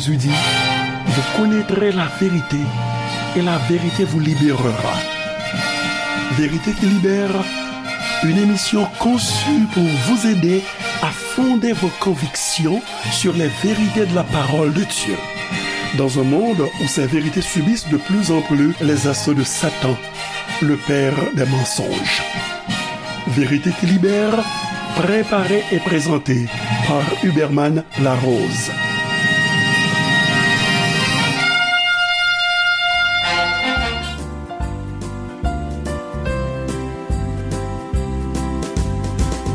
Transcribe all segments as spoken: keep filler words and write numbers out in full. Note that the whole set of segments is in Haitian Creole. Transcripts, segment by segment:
Jésus dit, vous connaîtrez la vérité et la vérité vous libérera. Vérité qui libère, une émission conçue pour vous aider à fonder vos convictions sur les vérités de la parole de Dieu. Dans un monde où ces vérités subissent de plus en plus les assauts de Satan, le père des mensonges. Vérité qui libère, préparée et présentée par Huberman Larose.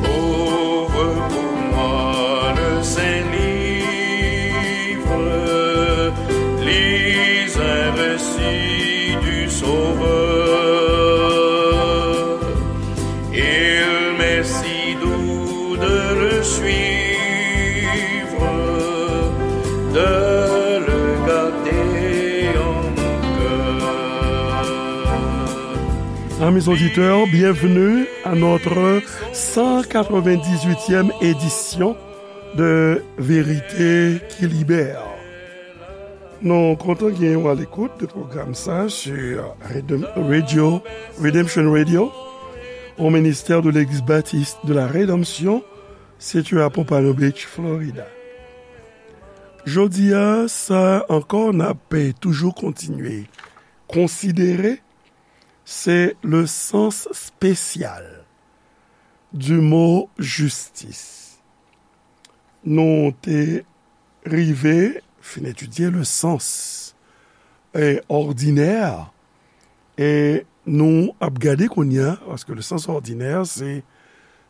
Ouvre pour moi le Saint-Livre, lis un récit du Sauveur. Il m'est si doux de le suivre, de le garder en mon cœur. Amis auditeurs, bienvenue à notre cent quatre-vingt-dix-huitième édition de Vérité qui Libère. Nou kontan gen w alekout de pwogram sa sur Redem- Radio, Redemption Radio, au ministère de l'Église Baptiste de la Rédemption, situé à Pompano Beach, Florida. Jodi a, sa ankò, n ap toujou kontinye konsidere, se le sens spécial du mot justice. Nou te rive fin etidye le sens, e, òdinè, e nou ap gade kounye a, paske le sens òdinè, se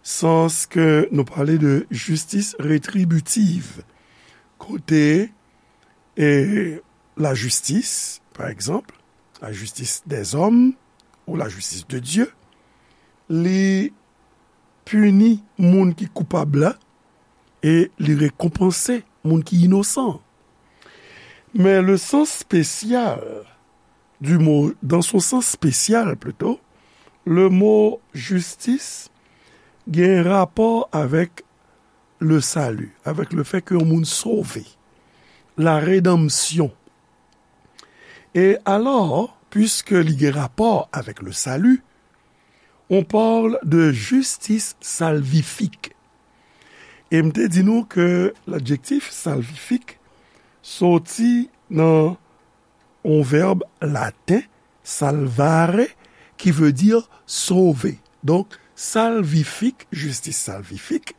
sans ke nou pale de justice rétributive, kote, e, lajistis, pa egzanp, lajistis dèzòm ou lajistis de Dye, li pini moun ki koupab la e li rekonpanse moun ki inosan. Men le sens spécial du mot, dans son sens spécial plutôt, le mot justice gen rapò avèk le salut, avec le fait ke yon moun sove, la rédemption. E alò, puiske li gen rapò avèk le salut, on parle de justice salvifique. E m te di nou ke ladjektif salvifique soti nan yon vèb laten, salvare, qui veut dire sauver. Donc, salvifique, justice salvifique,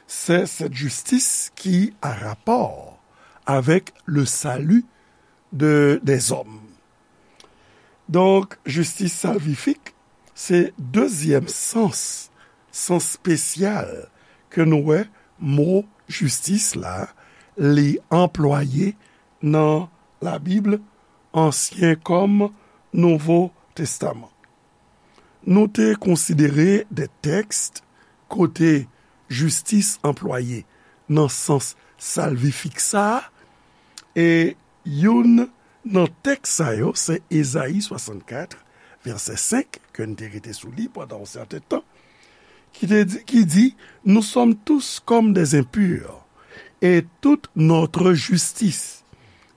c'est cette justice qui a rapport avec le salut de, des hommes. Donk, justice salvifique, se dezyèm sans, sans spesyal ke nou wè mo jistis la, li anplwaye nan Labib, Ansyen kòm Nouvo Testaman. Nou te konsidere de tèks kote jistis anplwaye nan sans salvifik sa a, e youn nan tèks sa yo se Ezayi swasannkat, vèsè senk, ke n te rete sou li pandan yon sèten tan, ki te di, ki di, nous sommes tous comme des impurs, et toute notre justice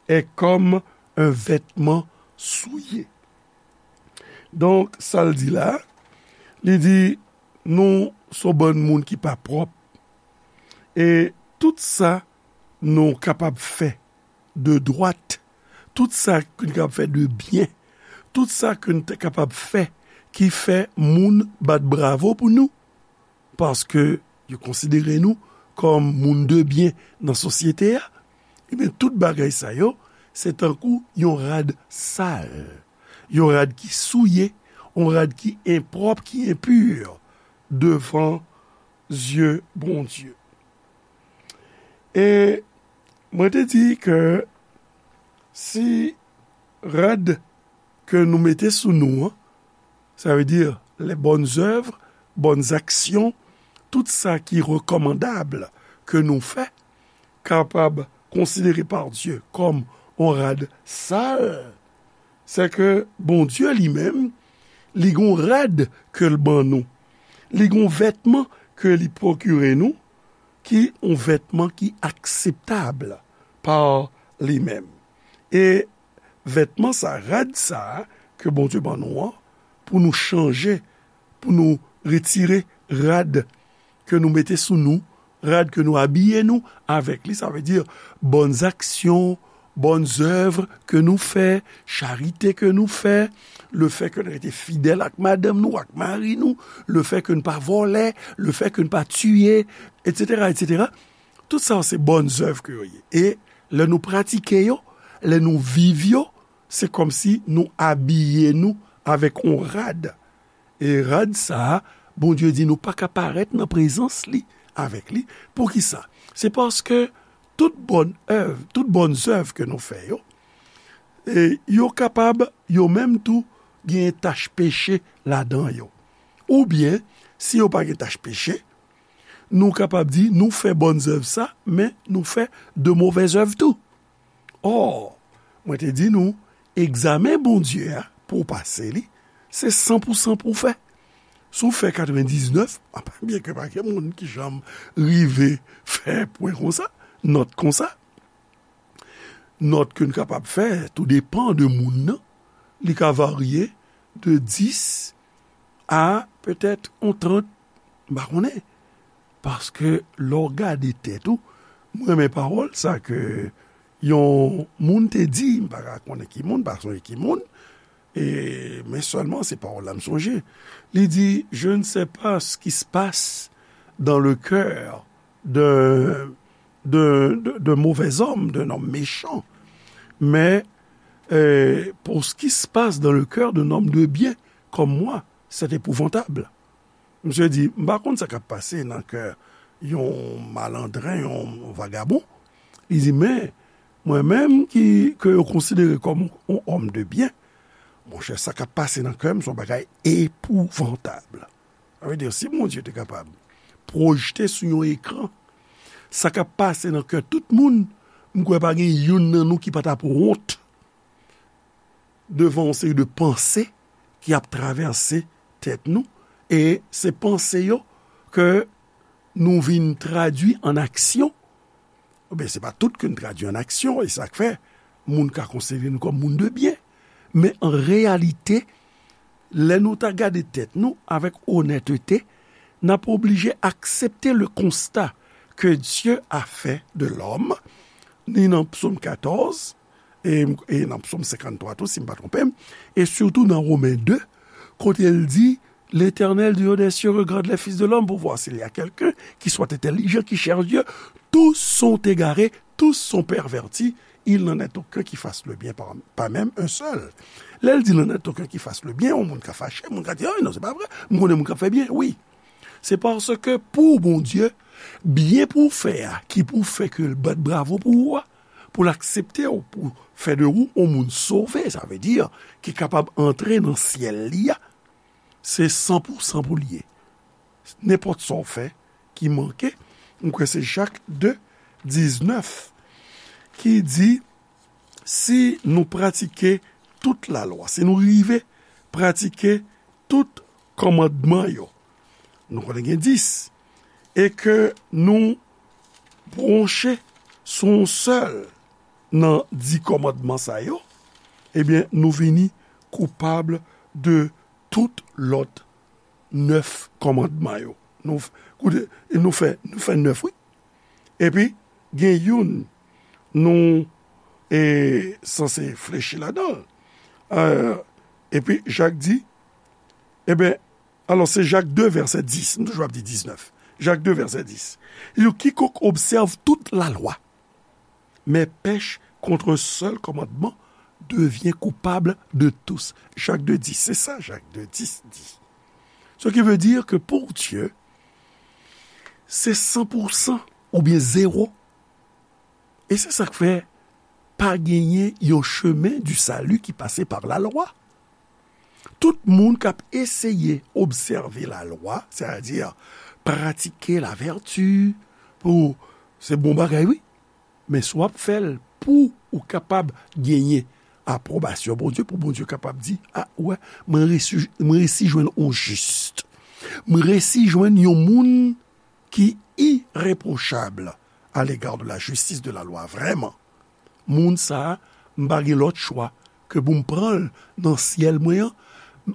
est comme un vêtement souillé. Donk, sa l di la, li di, nou se yon bann moun ki pa pwòp. E tout sa nou kapab fè de dwat, tout sa ke n kapab fè de byen, tout sa ke n te kapab fè ki fè moun bat bravo pou nou, paske yo konsidere nou kòm moun de byen nan sosyete a, ebyen, tout bagay sa yo, se tankou yon rad sal, yon rad ki souye, yon rad ki enpwòp, ki enpi devan zye Bondye. E mwen te di ke si rad ke nou mete sou nou an, sa vle di les bonnes œuvres, bonnes actions, tout sa ki rekòmandab ke nou fè, kapab konsidere pa Dye kòm yon rad sal, se ke Bondye li menm, li gon rad ke l ban nou. Li gon vètman ke li pwokire nou, ki yon vètman ki akseptab pa li menm. E vètman sa, rad sa ke Bondye ban nou an, pou nou chanje, pou nou retire rad ke nou mete sou nou, rad ke nou abiye nou avèk li, sa vle di bòn aksyon, bòn zèv ke nou fè, charite ke nou fè, le fè ke nou rete fidèl ak madanm nou, ak mari nou, le fè ke nou pa vòlè, le fè ke nou pa tiye, etsetera, etsetera. Tout sa se bòn zèv ke yo ye. E lè nou pratike yo, lè nou viv yo, se kòmsi nou abiye nou avèk yon rad. E rad sa a, Bondye di nou pa ka parèt nan prezans li avèk li. Poukisa? Se paske tout bòn èv, tout bòn zèv ke nou fè yo, e yo kapab, yo menm tou, gen tach peche ladan yo. Oubyen, si yo pa gen tach peche, nou kapab di nou fè bòn zèv sa, men nou fè de movèz èv tou. Ò, mwen te di nou, egzamen Bondye a, pou w pase li, se san pou san pou w fè. Si w fè katrevendiznèf, byenke pa gen moun ki janm rive fè pwen konsa, nòt konsa, nòt ke n kapab fè, tou depan de moun nan, li ka varye de dis a petèt yon trant, m pa konnen. Paske lè w gade tèt ou, mwen renmen pawòl sa ke yon moun te di, m pa ka konnen ki moun, pa sonje ki moun, e, men sèlman se pawòl la m sonje. Li di, je ne sais pas ce qui se passe dans le cœur d'un d'un d'un- d'un mauvais homme, d'un homme méchant, mais euh, pour ce qui se passe dans le cœur d'un homme de bien comme moi, c'est épouvantable. Misye di, m pa konn sa k ap pase nan kè yon malandren, yon vagabon. Li di, men, mwen menm ki, ke yo konsidere kòm yon òm de byen, monchè, sa k ap pase nan kè m se yon bagay epouvantab. Sa vle di, si Bondye te kapab pwojte sou yon ekran sa k ap pase nan kè tout moun, m kwè pa gen youn nan nou ki pa t ap wont devan yon seri de panse ki ap travèse tèt nou, e se panse yo ke nou vin tradui an aksyon. Oubyen se pa tout ke n tradui an aksyon, e sa k fè moun ka konsidere nou kòm moun de byen. Men an reyalite, lè nou ta gade tèt nou avèk onètete, n ap oblije aksepte le constat que Dieu a fait de l'homme, ni nan Psaume quatorze, e, e nan Psaume cinquante-trois tou, si m pa twonpe m, e sitou nan Romen de, kote l di, L'Éternel du haut des cieux regarde les fils de l'homme pour voir s'il y a quelqu'un qui soit intelligent, qui cherche Dieu. Tous sont égarés, tous sont pervertis. Il n'en est aucun qui fasse le bien, pas, pas même un seul. Lè l di, n'en est aucun qui fasse le bien, yon moun ka fache, moun ka di, ah non, se pa vre, m konnen moun k ap fè byen, wi. Se paske pou Bondye, byen pou w fè a, ki pou fè ke l bat bravo pou ou a, pou l aksepte w, pou fè de ou yon moun sove, sa vle di, ki kapab antre nan syèl li a, se san pou san pou l ye. Nenpòt sa w fè ki manke, m kwè se Jak de, diznèf, ki di, si nou pratike tout lalwa, si nou rive pratike tout kòmandman yo, nou konnen gen dis, e ke nou bwonche sou yon sèl nan dis kòmandman sa yo, ebyen, nou vini koupab de tout lòt nèf kòmandman yo. Nou, koute, nou fè, nou fè nèf, wi. Epi, gen youn nou e, sanse flechi ladan l. E, epi, Jak di, ebyen, alò, se Jak de, vèsè dis, m toujou ap di diznèf. Jak de, vèsè dis. Li di, quiconque observe toute la loi, mais pèche contre un seul commandement devient coupable de tous. Jak de dis, se sa Jak de dis di. Ce qui veut dire que pour Dieu, se san pou san oubyen zewo. E se sa k fè pa genyen yon chemen du salut ki pase pa lalwa. Tout moun k ap eseye obsève lalwa, sètadi pratike lavèti, pou, se bon bagay, wi. Men si w ap fè l pou ou kapab genyen apwobasyon Bondye, pou Bondye kapab di, a, ou wè, mwen resi, mwen resi jwenn yon jis. Mwen resi jwenn yon moun ki irepwochab à l'égard de la justice de la loi, vrèman. moun sa a, m pa gen lòt chwa ke pou m pran l nan syèl mwen an,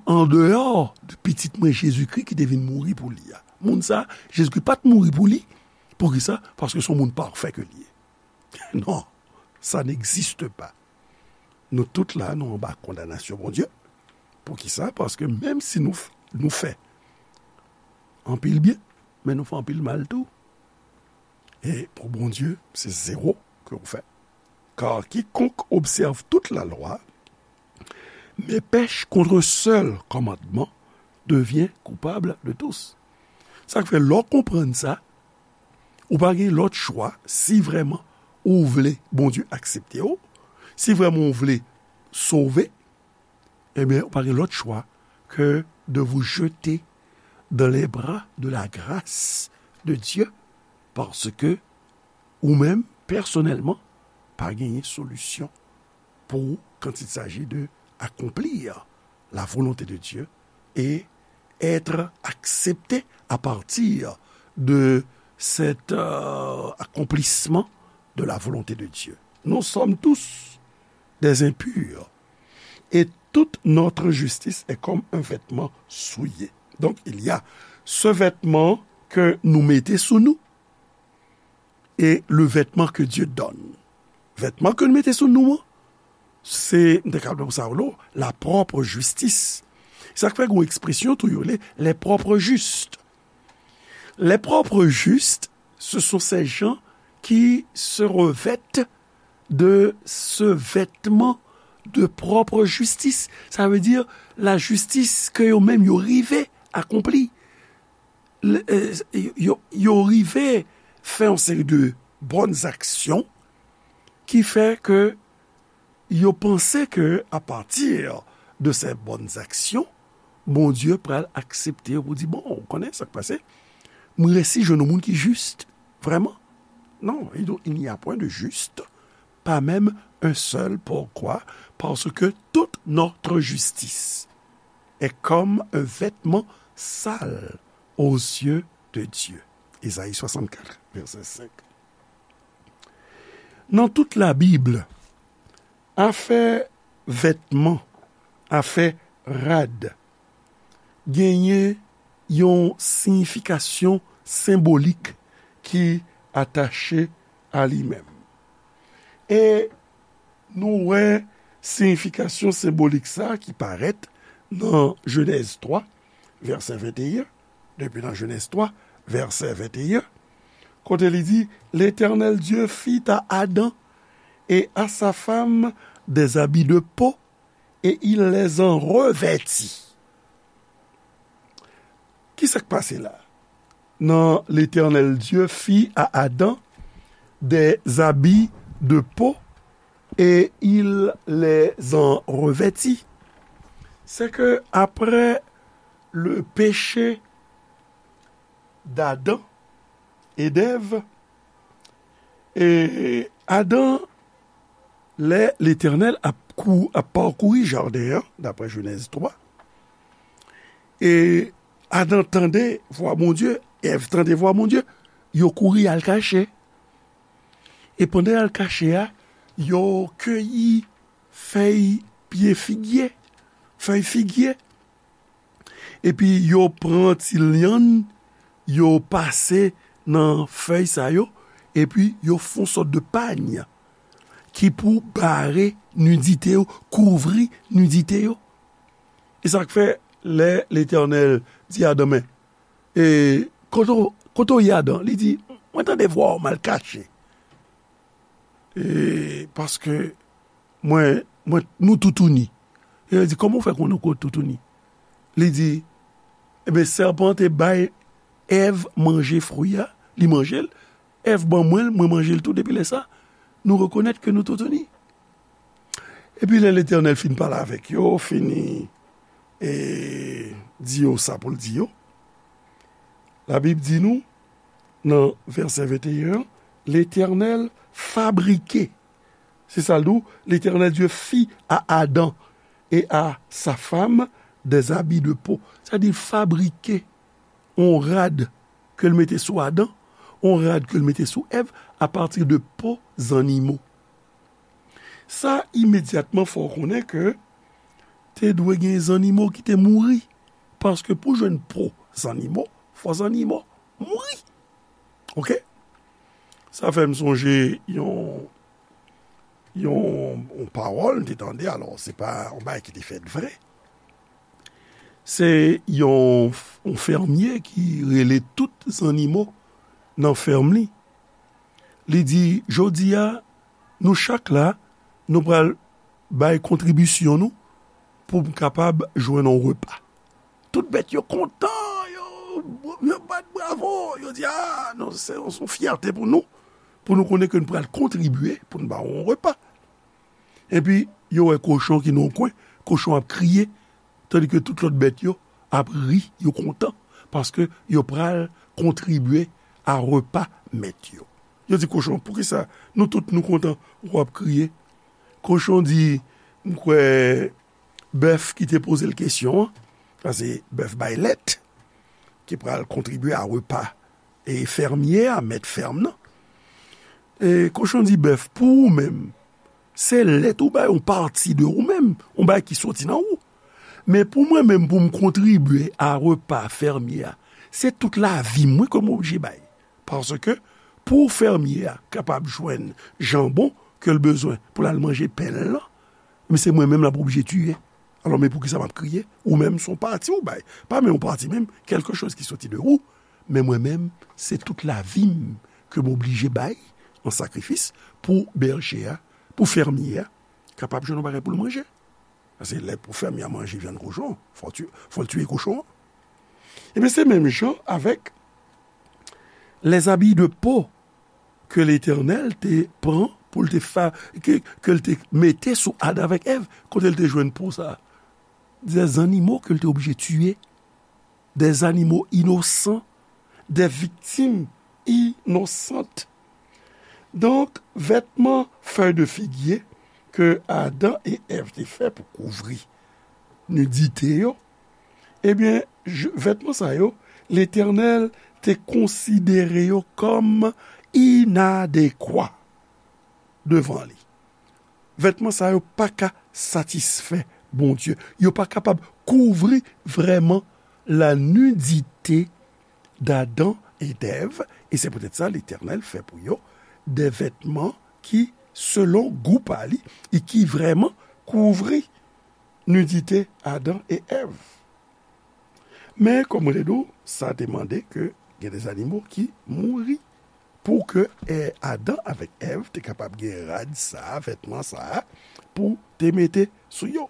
andeyò de pitit mwen Jezikri ki te vin mouri pou li a. Moun sa a, Jezikri pa t mouri pou li. Poukisa? Paske se yon moun pafè ke li ye. Non, ça n'existe pas. Nou tout la, nou anba kondanasyon Bondye. Poukisa? Paske menm si nou, f- nou fè anpil byen, men nou fè anpil mal tou. E pou Bondye, se zewo ke w fè. Car quiconque observe toute la loi, mais pèche contre un seul commandement, devient coupable de tous. Sa k fè, lè w konprann sa, ou pa gen lòt chwa, si vrèman ou vle Bondye aksepte w, si vrèman ou vle sove, ebyen, ou pa gen lòt chwa ke de vous jeter dans les bras de la grâce de Dieu, parce que ou menm, pèsonèlman, pa genyen solisyon pour quand il s'agit de accomplir la volonté de Dieu et être accepté à partir de cet euh, accomplissement de la volonté de Dieu. Nous sommes tous des impurs et toute notre justice est comme un vêtement souillé. Donc il y a ce vêtement que nous mettons sous nous et le vêtement que Dieu donne. Vètman ke nou mete sou nou an, se, m te ka pran sa, la propre justice. Sa k fè gen yon ekspresyon tou yo rele les propres justes. Les propres justes, ce sont ces gens qui se revêtent de ce vêtement de propre justice. Ça veut dire la justice ke yo menm yo rive akonpli. Yo, yo rive fè yon seri de bòn aksyon ki fè ke yo panse ke apati de se bòn aksyon, Bondye pral aksepte yo pou di, bon, ou konnen sa k pase, m resi jwenn yon moun ki jis, vrèman. Non, il n'y a point de juste, pas même un seul. Pourquoi? Parce que toute notre justice est comme un vêtement sale aux yeux de Dieu. Ezayi swasannkat, vèsè senk. Nan tout Labib, afè vètman, afè rad, genyen yon siyifikasyon senbolik ki atache a li menm. E nou wè siyifikasyon senbolik sa ki parèt nan Jenèz twa, vèsè venteyen, depi nan Jenèz twa, vèsè venteyen, kote li di, L'Éternel Dieu fit à Adam et à sa femme des habits de peau, et il les en revêtit. Ki sa k pase la? Non, l'Éternel Dieu fit à Adam des habits de peau et il les en revêtit. C'est que après le péché d'Adam et d'Ève, e Adan, lè Letènèl ap kou, ap pakouri jaden an, daprè Jenèz twa, e Adan tande vwa Bondye, Èv tande vwa Bondye, yo kouri al kache. E pandan y al kache a, yo keyi fèy pye figye, fèy figye. Epi yo pran ti lyann, yo pase nan fèy sa yo, epi yo fè yon sòt de pany ki pou bare nidite yo, kouvri nidite yo. E sa k fè, lè Letènèl di Adan, men, e, kote w, kote w ye, Adan? Li di, mwen tande vwa w, m al kache. E, paske mwen, mwen, nou toutouni. E yo di, kòman w fè konnen w toutouni? Li di, ebyen, sèpan te bay Èv manje fwi a, li manje l. Èv ban mwen l, mwen manje l tou. Depi lè sa, nou rekonèt ke nou toutouni. Epi lè Letènèl fin pale avèk yo, fini, e, di yo sa pou l di yo, Labib di nou, nan vèsè venteyen an, Letènèl fabrike. Se sa l di w, L'Éternel Dieu fit à Adam et à sa femme des habits de peau. Sa di fabrike yon rad ke l mete sou Adan, yon rad ke l mete sou Èv, apati de po zannimo. Sa imedyatman fè w konnen ke te dwe gen zannimo ki te mouri. Paske pou jwenn po zannimo, fò zannimo mouri. Oke? Sa fè m sonje yon, yon, yon pawòl m te tande, alò, se pa yon bagay ki te fèt vre. Se yon, yon fèmye ki rele tout zannimo nan fèm li. Li di, jodi a, nou chak la, nou pral bay kontribisyon nou pou m kapab jwenn yon repa. Tout bèt yo kontan, yo, yo bat bravo, yo di, a, non, se, se yon fyète pou nou, pou nou konnen ke nou pral kontribye pou n ba w yon repa. Epi, yo wè kochon ki nan yon kwen, kochon ap kriye, tandike tout lòt bèt yo ap ri, yo kontan, paske yo pral kontribye a repa mèt yo. Yo di kochon, poukisa nou tout nou kontan, w ap kriye? Kochon di, m kwè bèf ki te poze l kesyon an, paske bèf bay lèt, ki pral kontribye a repa e fèmye a, mèt fèm nan. E kochon di bèf, pou ou menm, se lèt ou bay yon pati de ou menm, yon bagay ki soti nan ou. Men pou mwen menm, pou m kontribye a repa fèmye a, se tout lavi mwen ke m oblije bay. Paske pou fèmye a kapab jwenn janbon ke l bezwen pou l al manje pen l lan, men se mwen menm l ap oblije tiye. Alò, men poukisa m ap kriye? Ou menm, se yon pati ou bay. Pa menm yon pati menm, kèlke choz ki soti de ou. Men mwen menm, se tout lavi m ke m oblije bay an sakrifis pou bèje a, pou fèmye a, kapab jwenn yon bagay pou l manje. Paske lè pou fèmye a manje vyann kochon, fò l tiye, fò l tiye kochon an. Ebyen, se menm jan avèk les habits de peau ke Letènèl te pran pou l te fa, ke, ke l te mete sou Adan avèk Èv, kote l te jwenn po sa a? Des animaux ke l te oblije tiye, des animaux innocents, des victimes innocentes. Donk, vètman fèy de figye ke Adan e Èv te fè pou kouvri nidite yo, ebyen, je, vètman sa yo, Letènèl te konsidere yo kòm inadekwa devan li. Vètman sa yo pa ka satisfè Bondye. Yo pa kapab kouvri vrèman la nidite d'Adan e d'Èv, e se poutèt sa Letènèl fè pou yo de vètman ki, selon gou pa li, e ki vrèman kouvri nidite Adan e Èv. Men, kòm mwen te di w, sa te mande ke gen de zannimo ki mouri pou ke, eh, Adan avèk Èv te kapab gen rad sa a, vètman sa a, pou te mete sou yo.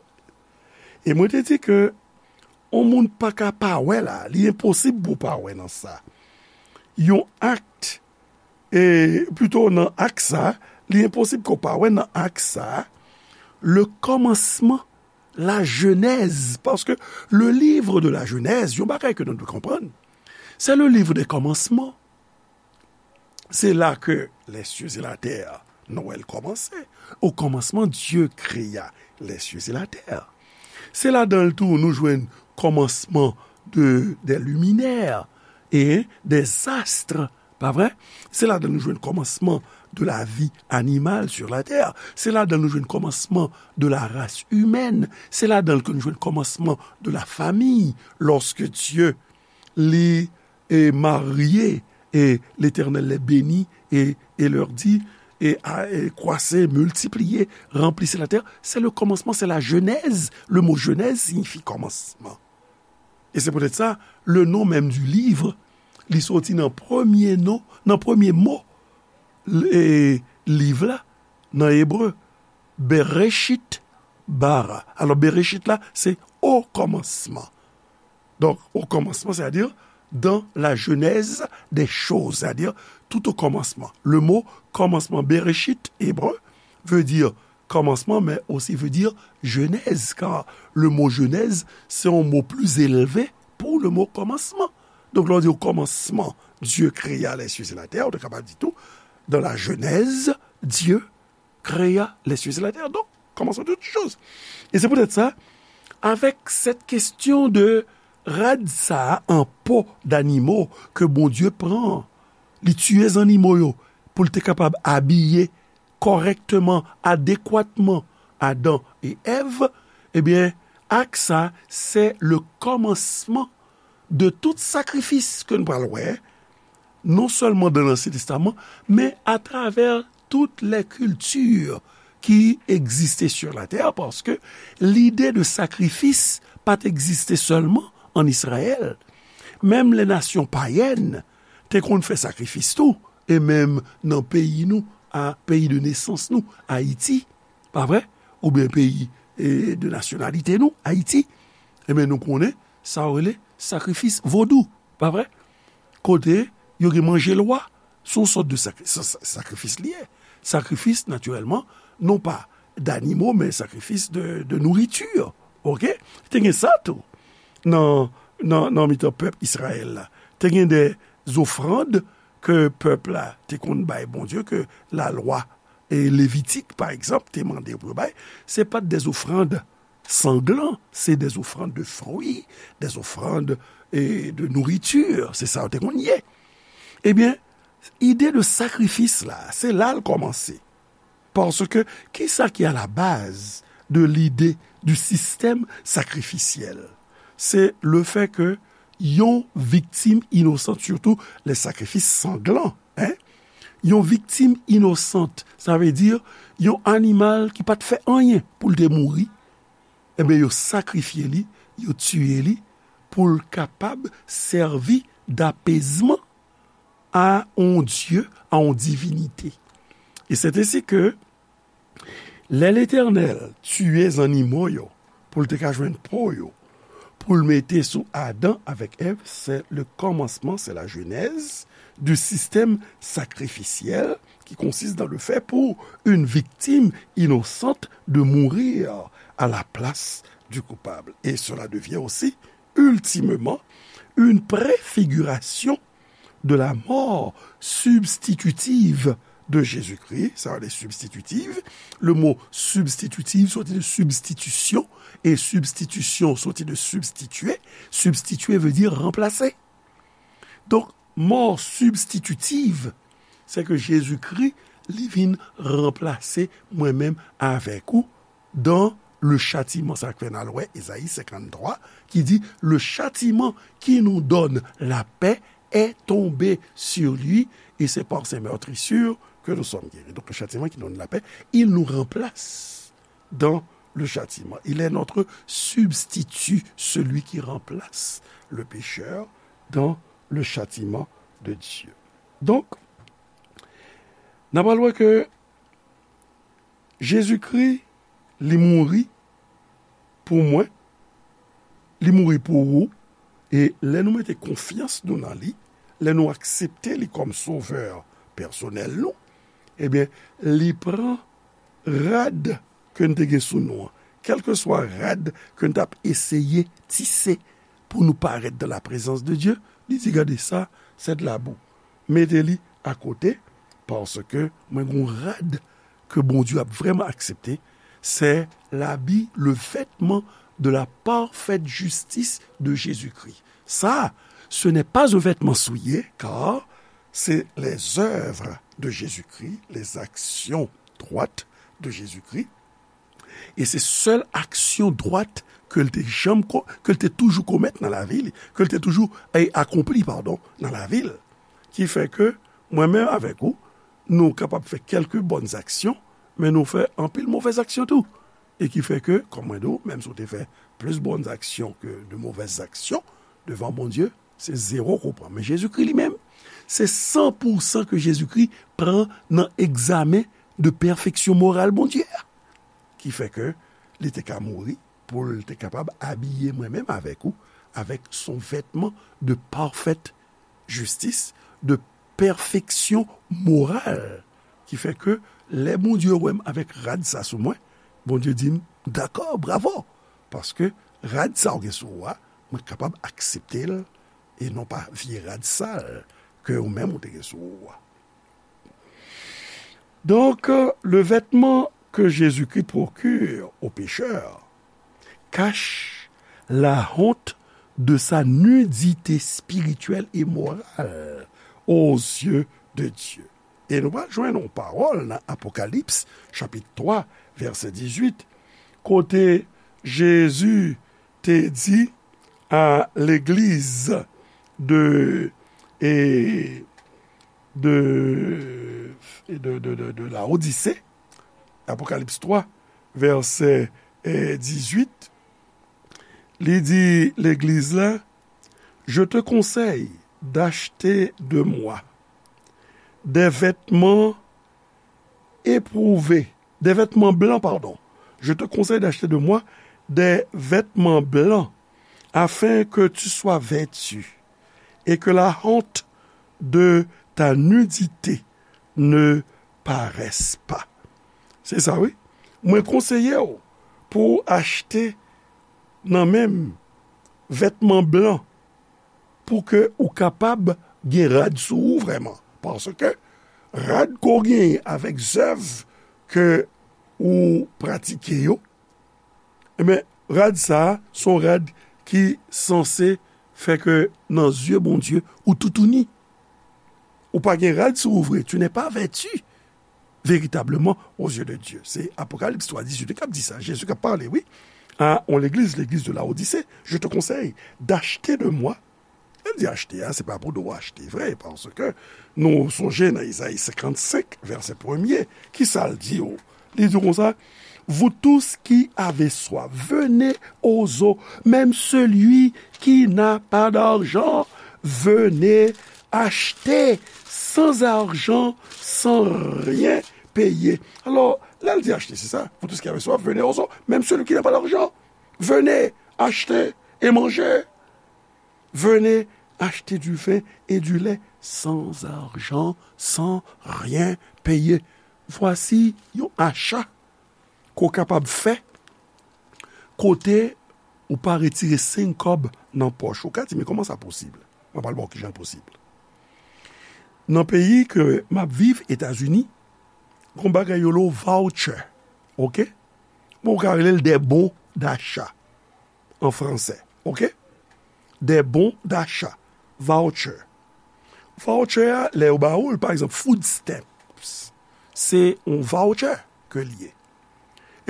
E mwen te di ke yon moun pa ka pa wè la, li enposib pou w pa wè nan sa. Yon akt, e plito nan akt sa, li enposib ke w pa wè nan akt sa, le kòmansman, la jenèz, paske le livre de la Genèse, yon bagay ke nou dwe konprann, c'est le livre des commencements. Se la ke les cieux et la terre, nou wè l kòmanse. Au commencement, Dieu créa les cieux et la terre. Se ladan l tou nou jwenn kòmansman de, des luminaires et des astres, pa vre? Se ladan l nou jwenn kòmansman de la vie animale sur la terre. Se ladan l nou jwenn kòmansman de la race humaine. Se ladan l ke nou jwenn kòmansman de la famille, lorsque Dieu li, eh, marye, et l'Éternel les bénit et, et leur dit, et, a, et croissez, multipliez, remplissez la terre. C'est le commencement, c'est la genèse. Le mot genèse signifie commencement. E se poutèt sa, le nom même du livre, li soti nan premye non, nan premye mo, e, liv la, nan ebre, Bereshit bara. Alò, Bereshit la, se o kòmansman. Donk, o kòmansman, c'est-à-dire dans la genèse des choses, c'est-à-dire tout au commencement. Le mot commencement, Bereshit, ebre, veut dire commencement, mais aussi veut dire genèse, car le mot genèse, c'est un mot plus élevé pour le mot commencement. Donk, lè w di o kòmansman, Dieu créa les cieux et la terre, ou te kapab di tou, dans la Genèse, Dieu créa les cieux et la terre. Donk, kòmansman de tout chose. E se poutèt sa, avèk cette question de rad sa a an po d'animo ke Bondye pran, li tiye zannimo yo pou l te kapab abiye kòrèkteman, adekwatman Adan e Èv, ebyen, ak sa, se le kòmansman de tout sakrifis ke nou pral wè, non sèlman dan Lansyen Testaman, men atravè tout lè kilti ki egziste sur la tè, paske lide de sakrifis pa t egziste sèlman ann Izrayèl. Menm lè nasyon payèn te konn fè sakrifis tou, e menm nan peyi nou, a peyi de nesans nou, Ayiti, pa vre? Oubyen peyi, e, de nasyonalite nou, Ayiti, ebyen, nou konnen sa yo rele sakrifis vodou, pa vre? Kote yo gen manje lwa, se yon sòt de sakri-, sa-, sa-, sakrifis li ye. Sakrifis, natirèlman, non pa danimo, men sakrifis de, de nouriti. Oke? Te gen sa tou nan, nan, nan mitan pèp Izrayèl la. Te gen de zofrann ke pèp la te konn bay Bondye, ke lalwa, e, levitik, pa egzanp, te mande pou yo bay. Se pa t de zofrann sanglan, se de zofrann de fwi, de zofrann, e, de nouriti, se sa yo te konn ye. Ebyen, ide de sakrifis la, se la l kòmanse. Paske, kisa ki a la baz de lide du système sacrificiel? Se le fè ke yon viktim inosan, sitou lè sakrifis sanglan, en, yon viktim inosan, sa vle di yon animal ki pa t fè anyen pou l te mouri, ebyen, yo sakrifye li, yo tiye li, pou l kapab sèvi d'apezman a yon dye, a yon divinite. E c'est ainsi que, lè Letènèl tiye zannimo yo pou l te ka jwenn po yo, pou l mete sou Adan avèk Èv, c'est le commencement, c'est la genèse du système sacrificiel qui consiste dans le fait pour une victime innocente de mourir à la place du coupable. Et cela devient aussi, ultimement, une préfiguration de la mort substitutive de Jésus-Christ. Sa vle di substitutive. Le mot substitutive soti de substitution, e substitution soti de substituer. Substituer veut dire remplacer. Donk, mò sibstititiv, se ke Jezikri, li vin ranplase mwen menm avèk ou dans le châtiment. Sa k fè n al wè Ezayi senkanntwa, ki di, le châtiment qui nous donne la paix est tombé sur lui, et c'est par ses meurtrissures que nous sommes guéris. Donc, le châtiment qui nous donne la paix, il nous remplace dans le châtiment. Il est notre substitut, celui qui remplace le pécheur dans le châtiment de Dieu. Donk, n ap al wè ke Jezikri, li mouri pou mwen, li mouri pou ou, e lè nou mete konfyans nou nan li, lè nou aksepte li kòm sovè pèsonèl nou, ebyen, li pran rad ke n te gen sou nou an, kèlkeswa rad ke n t ap eseye tise pou nou parèt dans la présence de Dieu, li di, gade sa, c'est de la boue. Mete li akote, paske mwen gen yon rad ke Bondye ap vrèman aksepte, c'est l'habit, le vêtement de la parfaite justice de Jésus-Christ. Ça, ce n'est pas un vêtement souillé, car c'est les œuvres de Jésus-Christ, les actions droites de Jésus-Christ. E se sèl aksyon dwat ke l te janm ko-, ke l te toujou komèt nan lavi li, ke l te toujou, e, akonpli, padon, nan lavi l. Ki fè ke mwen menm avèk ou, nou kapab fè kèlke bòn aksyon, men nou fè anpil movèz aksyon tou. E ki fè ke, kòm mwen di w, menm si w te fè plis bòn aksyon ke de movèz aksyon devan Bondye, se zewo ke w pran. Men Jezikri li menm, se san pou san ke Jezikri pran nan egzamen de pèfeksyon moral Bondye a. Ki fè ke li te ka mouri pou l te kapab abiye mwen menm avèk ou, avec son vêtement de parfaite justice, de pèfeksyon moral. Ki fè ke lè Bondye wè m avèk rad sa sou mwen, Bondye di m, dakò, bravo, paske rad sa w gen sou ou a, mwen kapab aksepte l, e non pa vye rad sal ke ou menm ou te gen sou ou a. Donc, le vêtement que Jésus-Christ procure aux pécheurs cache la honte de sa nudité spirituelle et morale aux yeux de Dieu. E nou pral jwenn yon pawòl nan Apokalips, chapit twa, vèsè dizuit, kote Jezi te di a legliz de, e, de, de, de, de, de Laodise, Apokalips twa, vèsè, e, dizuit, li di legliz la, Je te conseille d'acheter de moi des vêtements éprouvés, des vêtements blancs, pardon. Je te conseille d'acheter de moi des vêtements blancs, afin que tu sois vêtu, et que la honte de ta nudité ne paraisse pas. Se sa, wi. Mwen konseye w pou w achte nan men m vètman blan pou ke ou kapab gen rad sou ou vrèman. Paske rad ke w genyen avèk zèv ke ou pratike yo, ebyen, rad sa a, se yon rad ki sanse fè ke nan zye Bondye, ou toutouni. Ou pa gen rad sou ou vre. Tu n'es pas vêtu véritablement aux yeux de Dieu. Se Apokalips twa dizuit k ap di sa. Jezi k ap pale, wi. A yon legliz, legliz de Laodise, je te conseille d'acheter de moi. Lè l di achte a, se pa pou do w achte vre, paske nou sonje nan Izayi senkannsenk, vèsè premye, ki sa l di yo? Li di konsa, Vous tous qui avez soif, venez aux eaux, même celui qui n'a pas d'argent, venez acheter sans argent, sans rien payer. Alò, lè l di achte, se sa, Vous tous qui avez soif, venez aux eaux, même celui qui n'a pas d'argent, venez acheter et manger. Venez acheter du vin et du lait sans argent, sans rien payer. Vwasi yon acha ke w kapab fè kote ou pa retire senk kòb nan pòch ou. Ou ka di, "Men kòman sa posib?" Mwen pral ba w kijan l posib. Nan peyi ke m ap viv, Etazini, gon bagay yo rele voucher, oke? Bon, ou ka rele l des bons d'achat an fransè, oke? Des bons d'achat, voucher. Voucher a, lè yo ba ou l, pa egzanp, food stamps, se yon voucher ke l ye.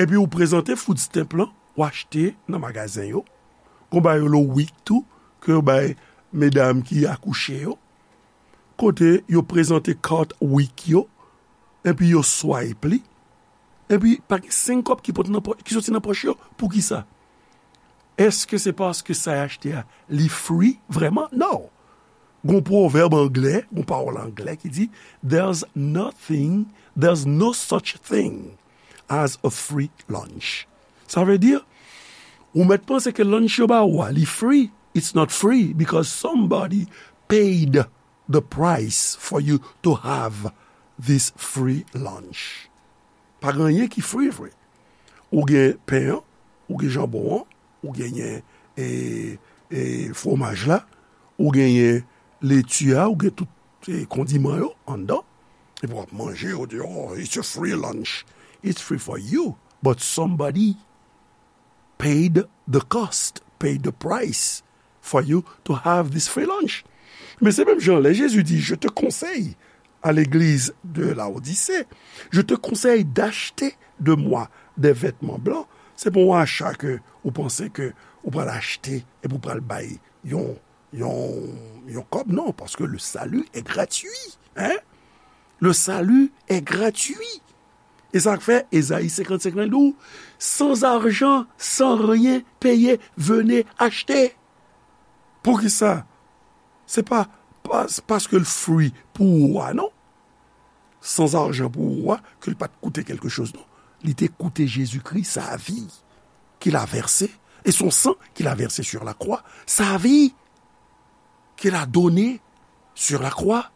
Epi ou prezante food stamp lan, ou achte nan magazen yo. Gon bagay yo rele wik tou, ke yo bay medam ki akouche yo. Kote yo prezante kat wik yo, epi yo swipe li, epi pa gen senk kòb ki pot nan pò-, ki soti nan pòch yo. Poukisa? Èske se paske sa y achte a, li free vrèman? Non. Gon pwovèb anglè, gon pawòl anglè ki di, "There's nothing, there's no such thing as a free lunch." Sa vle di, ou mèt panse ke lunch yo ba ou a, li free. It's not free because somebody paid the price for you to have this free lunch. Pa gen anyen ki free vre. Ou gen pen an, ou gen janbon an, ou genyen, e, e, fwomaj la, ou genyen leti a, ou gen tout, e, kondiman yo anndan. Epi w ap manje, ou di, "Oh, it's a free lunch." It's free for you, but somebody paid the cost, paid the price for you to have this free lunch. Men se menm jan lè Jezi di, "Je te conseille à l'église de Laodicée, je te conseille d'acheter de moi des vêtements blancs." Se pa yon acha ke ou panse ke ou pral achte epi ou pral bay yon, yon, yon kòb, non, paske le salut est gratuit, hein? Le salut est gratuit. E sa k fè Ezayi senkannsenk lan di w, "Sans argent, sans rien payer, venez acheter." Poukisa? Se pa, pa, paske l free pou ou a, non. Sans argent pou ou a, ke l pa t koute quelque chose, non. Li te koute Jezikri, sa vi qu'il a versé, et son sang qu'il a versé sur la croix, sa vi qu'il a donné sur la croix,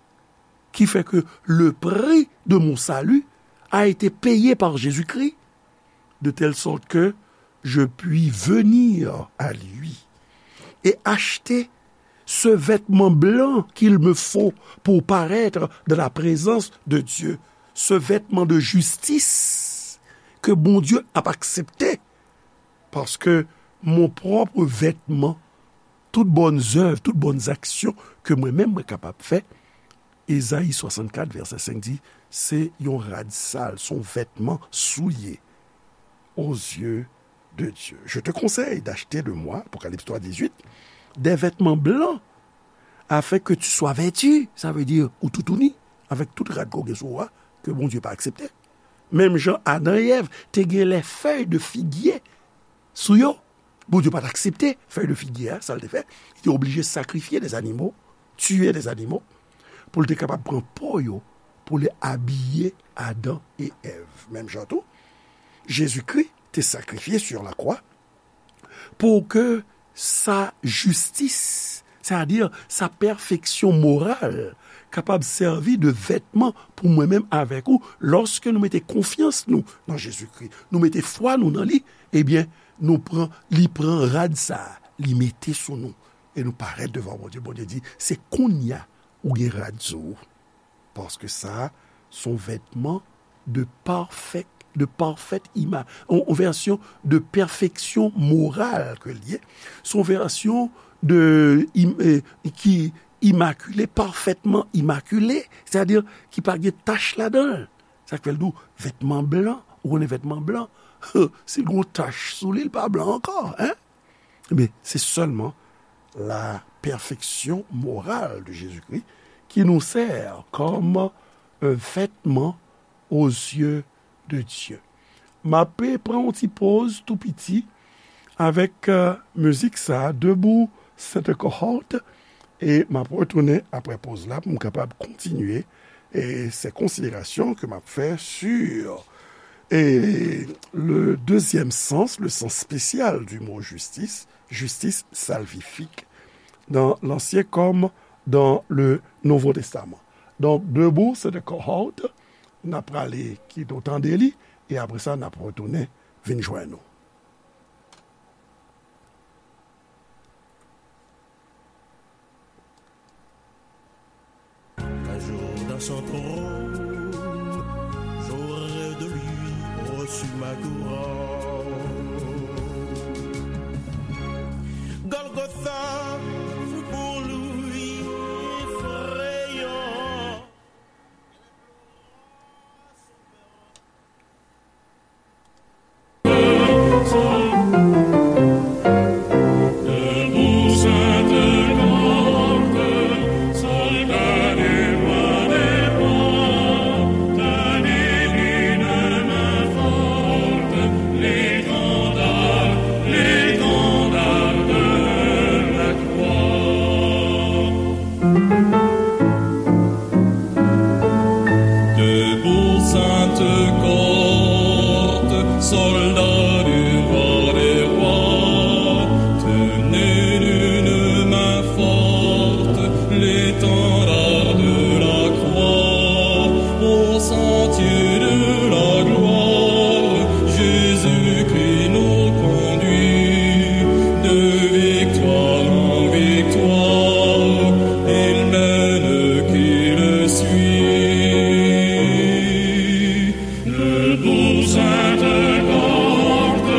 qui fait que le prix de mon salut a été payé par Jésus-Christ, de telle sorte que je puis venir à lui et acheter ce vêtement blanc qu'il me faut pour paraître dans la présence de Dieu, ce vêtement de justice que Bondye ap aksepte, paske mon pwòp vètman, tout bòn zèv, tout bòn aksyon ke mwen menm mwen kapab fè, Ezayi swasannkat, vèsè senk di, se yon rad sal, se yon vètman souye aux yeux de Dieu. Je te conseille d'acheter de moi, Apocalypse trois dix-huit, des vêtements blancs, afin que tu sois vêtu, sa vle di ou toutouni, avèk tout rad ke w gen sou ou a, ke Bondye pa aksepte. Menm jan Adan e Èv te gen lè fèy de figye sou yo, Bondye pa t aksepte fèy de figye a, sa l te fè, li te oblije sakrifye des animaux, tiye des animaux, pou l te kapab pran po yo, pou l abiye Adan e Èv. Menm jan tou, Jezikri te sakrifye sur la croix pou ke sa jistis, sètadi sa pèfeksyon moral, kapab sèvi de vètman pou mwen menm avèk ou, lòske nou mete konfyans nou nan Jezikri, nou mete fwa nou nan li, ebyen, nou pran, li pran rad sa a, li mete sou nou, e nou parèt devan Bondye. Bondye di, se kounye a ou gen rad sou ou. Paske sa, se yon vètman de parfèt, de parfèt ima-, yon, yon vèsyon de pèfeksyon moral ke l ye. Se yon vèsyon de, im-, eh, ki imakile, pafètman imakile, sètadi ki pa gen tach ladan l. Sa k fè l di w vètman blan, ou konnen vètman blan, si l gen yon tach sou li, l pa blan ankò, en? Ebyen, se sèlman la pèfeksyon moral de Jezikri ki nou sè kòm un vêtement aux yeux de Dieu. M ap pran yon ti poz tou piti avèk, euh, mizik sa a, Debout, Sainte Cohorte, e m ap retounen apre poz la pou m kapab kontinye, e, se konsiderasyon ke m ap fè sur, e, le deuxième sens, le sens spécial du mot justice, justice salvifique, dans l'Ancien comme dans le Nouveau Testament. Donk, Debout, Sainte Cohorte, n ap prale kite w tande li, e apre sa, n ap retounen vin jwenn ou. Un jour dans son trône, j'aurai de lui reçu ma couronne. Golgotha fut pour lui effrayant. Debout, Sainte Cohorte, soldats du roi des rois, tenez d'une main forte l'étendard de la croix, au sentier de la gloire, Jésus-Christ nous conduit de victoire en victoire, il mène qui le suit. Debout, Sainte Cohorte,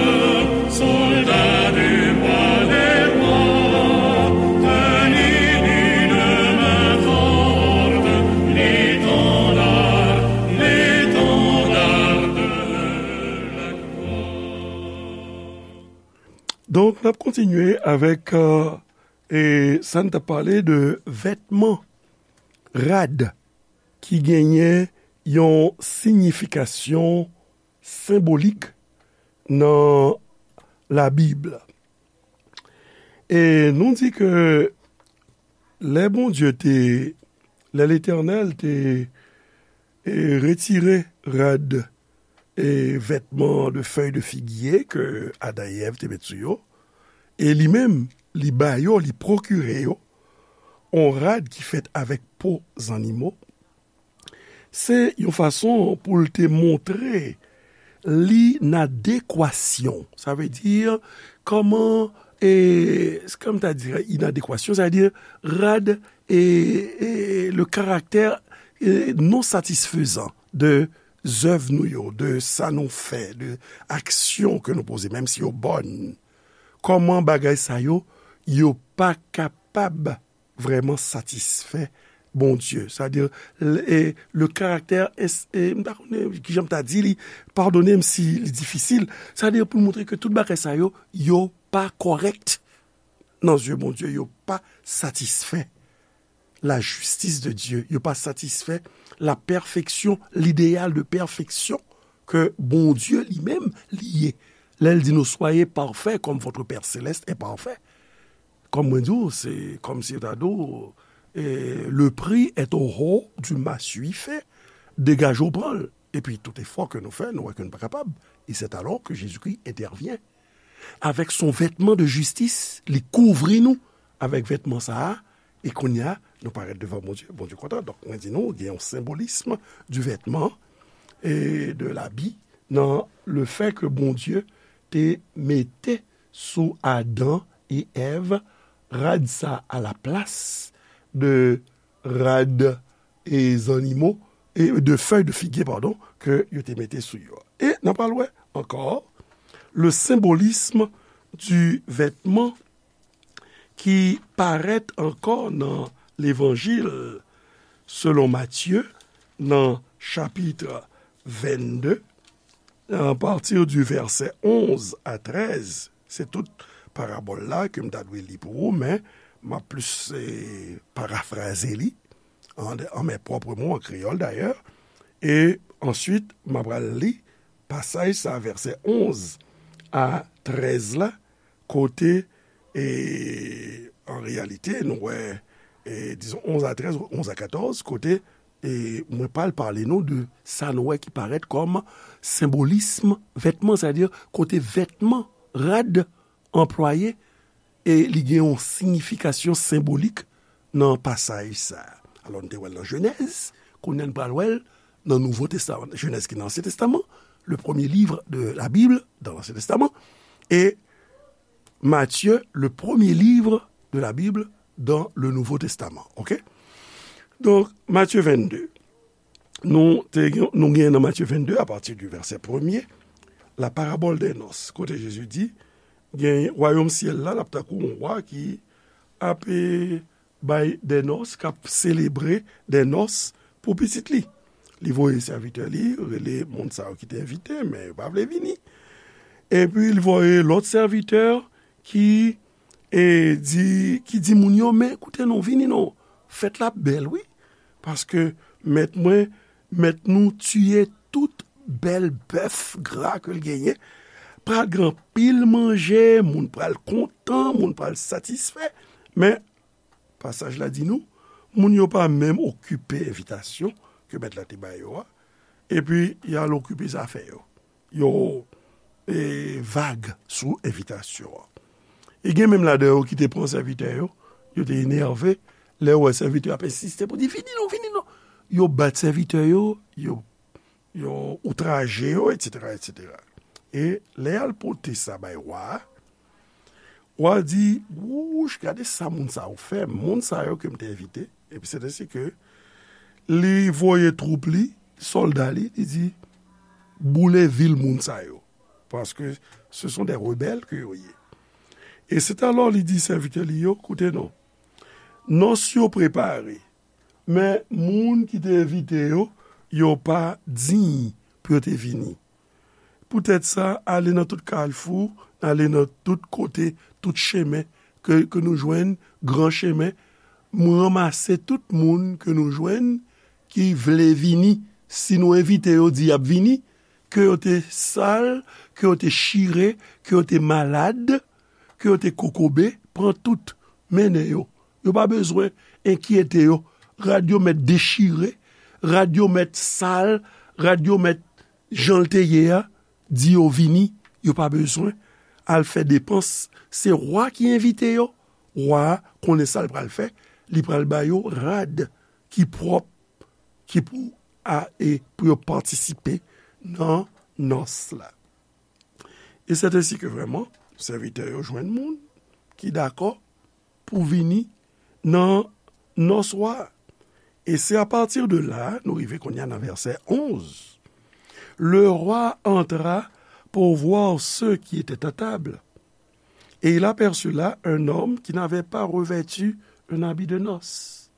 soldats du roi des rois, tenez d'une main forte l'étendard, l'étendard de la croix. Donk, n ap kontinye avèk, euh, e sa n t ap pale de vètman, rad, ki genyen yon siyifikasyon senbolik nan Labib. E nou di ke lè Bondye te, lè Letènèl te, e, retire rad e vètman de fèy de figye ke Adan e Èv te met sou yo, e li menm, li ba yo, li pwokire yo, on rad ki fèt avèk po zannimo, se yon fason pou l te montre linadekwasyon. Sa vle di, kòman, e, kòman ta di inadekwasyon, sa vle di rad e, e le karaktè, e, non satisfezan de zèv nou yo, de sa nou fè, de aksyon ke nou poze, menm si yo bòn. Kòman bagay sa yo, yo pa kapab vrèman satisfè Bondye. Sa vle di, le, e, le karaktè, e, m pa konnen kijan m ta di li, padone m si li difisil. Sa vle di pou l montre ke tout bagay sa yo, yo pa kòrèk nan zye Bondye, yo pa satisfè la justice de Dieu, yo pa satisfè la perfection, l'idéal de perfection ke Bondye li menm li ye. Lè l di nou, soyez parfaits comme votre Père céleste est parfait. Kòm mwen di w, se kòm si yo ta di w, eh, le prix est au haut du massue fait, degaje w pran l. Epi tout efò ke nou fè, nou wè ke nou pa kapab. Et c'est alors que Jésus-Christ intervient avec son vêtement de justice, li kouvri nou avèk vètman sa a, e kounye a, nou parèt devan Bondye, Bondye kontan. Donk, mwen di nou, gen yon senbolism du vêtement et de l'habit nan le fait que Bondye te mete sou Adan e Èv rad sa a la plas de rad e zannimo, e de fèy de figye, padon, ke yo te mete sou yo. E n a pral wè ankò le symbolisme du vêtement ki parèt ankò nan Levanjil selon Matye, nan chapit vennde, à partir du verset onze à treize. Se tout parabòl la ke m ta dwe li pou ou, men m ap plis, eh, parafraze li, en, en mes propres mots, en créole d'ailleurs. E answit, m ap pral li pasaj sa, vèsè onz a trèz la, kote, e, an reyalite, nou wè, e, dizon, onz a trèz, onz a katòz, kote, e, mwen pral pale nou de sa nou wè ki parèt kòm senbolism vètman, sètadi kote vètman, rad, anplwaye, e li gen yon siyifikasyon senbolik nan pasaj sa a. Alò, nou te wè l nan Jenèz, kounye a n pral wè l nan Nouvo Testaman. Jenèz ki nan Ansyen Testaman, le premier livre de la Bible dans l'Ancien Testament, e Matthieu, le premier livre de la Bible dans le Nouveau Testament. Ok? Donk, Matye vennde. Nou te gen, nou gen nan Matye vennde, apati di vèsè premye, la parabole des noces, kote Jezi di, gen wayòm syèl la, l ap tankou yon wa ki ap, e, bay dè nòs, k ap selebre dè nòs pou pitit li. Li voye sèvitè li, rele moun sa yo ki te envite, men yo pa vle vini. Epi li voye lòt sèvitè ki, e, di, ki di moun yo, men koute non, vini non, fèt la bèl wi, paske mèt mwen, mèt nou tiye tout bèl bèf gra ke l genyen. Pral gen anpil manje, moun pral kontan, moun pral satisfè. Men, pasaj la di nou, moun yo pa menm okipe envitasyon ke mèt la te ba yo a, epi y al okipe zafè yo. Yo, e, vag sou envitasyon an. E gen menm ladan yo ki te pran sèvitè yo, yo te enève, lè yo wè sèvitè yo ap ensiste pou di, vini non, vini non. Yo bat sèvitè yo, yo yo outraje yo, etsetera, etsetera. E lè y al pote sa bay wa a, wa a di, wouch, gade sa moun sa yo fè, moun sa yo ke m te envite. Epi se ensi ke li voye twoup li, sòlda li, li di, boule vil moun sa yo. Paske ce sont des rebelles que yo ye. E c'est alors li di sèvitè li yo, koute non, nòs yo prepare, men moun ki te envite yo, yo pa diy pou yo te vini. Poutèt sa, ale nan tout kalfou, ale nan tout kote, tout chemen ke, ke nou jwenn, gran chemen, m ranmase tout moun ke nou jwenn ki vle vini. Si nou envite yo, di y ap vini, ke yo te sal, ke yo te chire, ke yo te malad, ke yo te kokobe, pran tout, mennen yo. Yo pa bezwen enkyete yo. Rad yo mèt dechire, rad yo mèt sal, rad yo mèt jan l te ye a, di yo vini, yo pa bezwen al fè depans. Se wa ki envite yo. Wa a konnen sa l pral fè, li pral ba yo rad ki pwòp, ki pou a, e pou yo patisipe nan nòs la. E c'est ainsi que vraiment, sèvitè yo jwenn moun ki dakò pou vini nan nòs wa a. Et c'est à partir de là, nou rive kounye a nan vèsè onz. Le roi entra pour voir ceux qui étaient à table. Et il aperçut là un homme qui n'avait pas revêtu un habit de noces.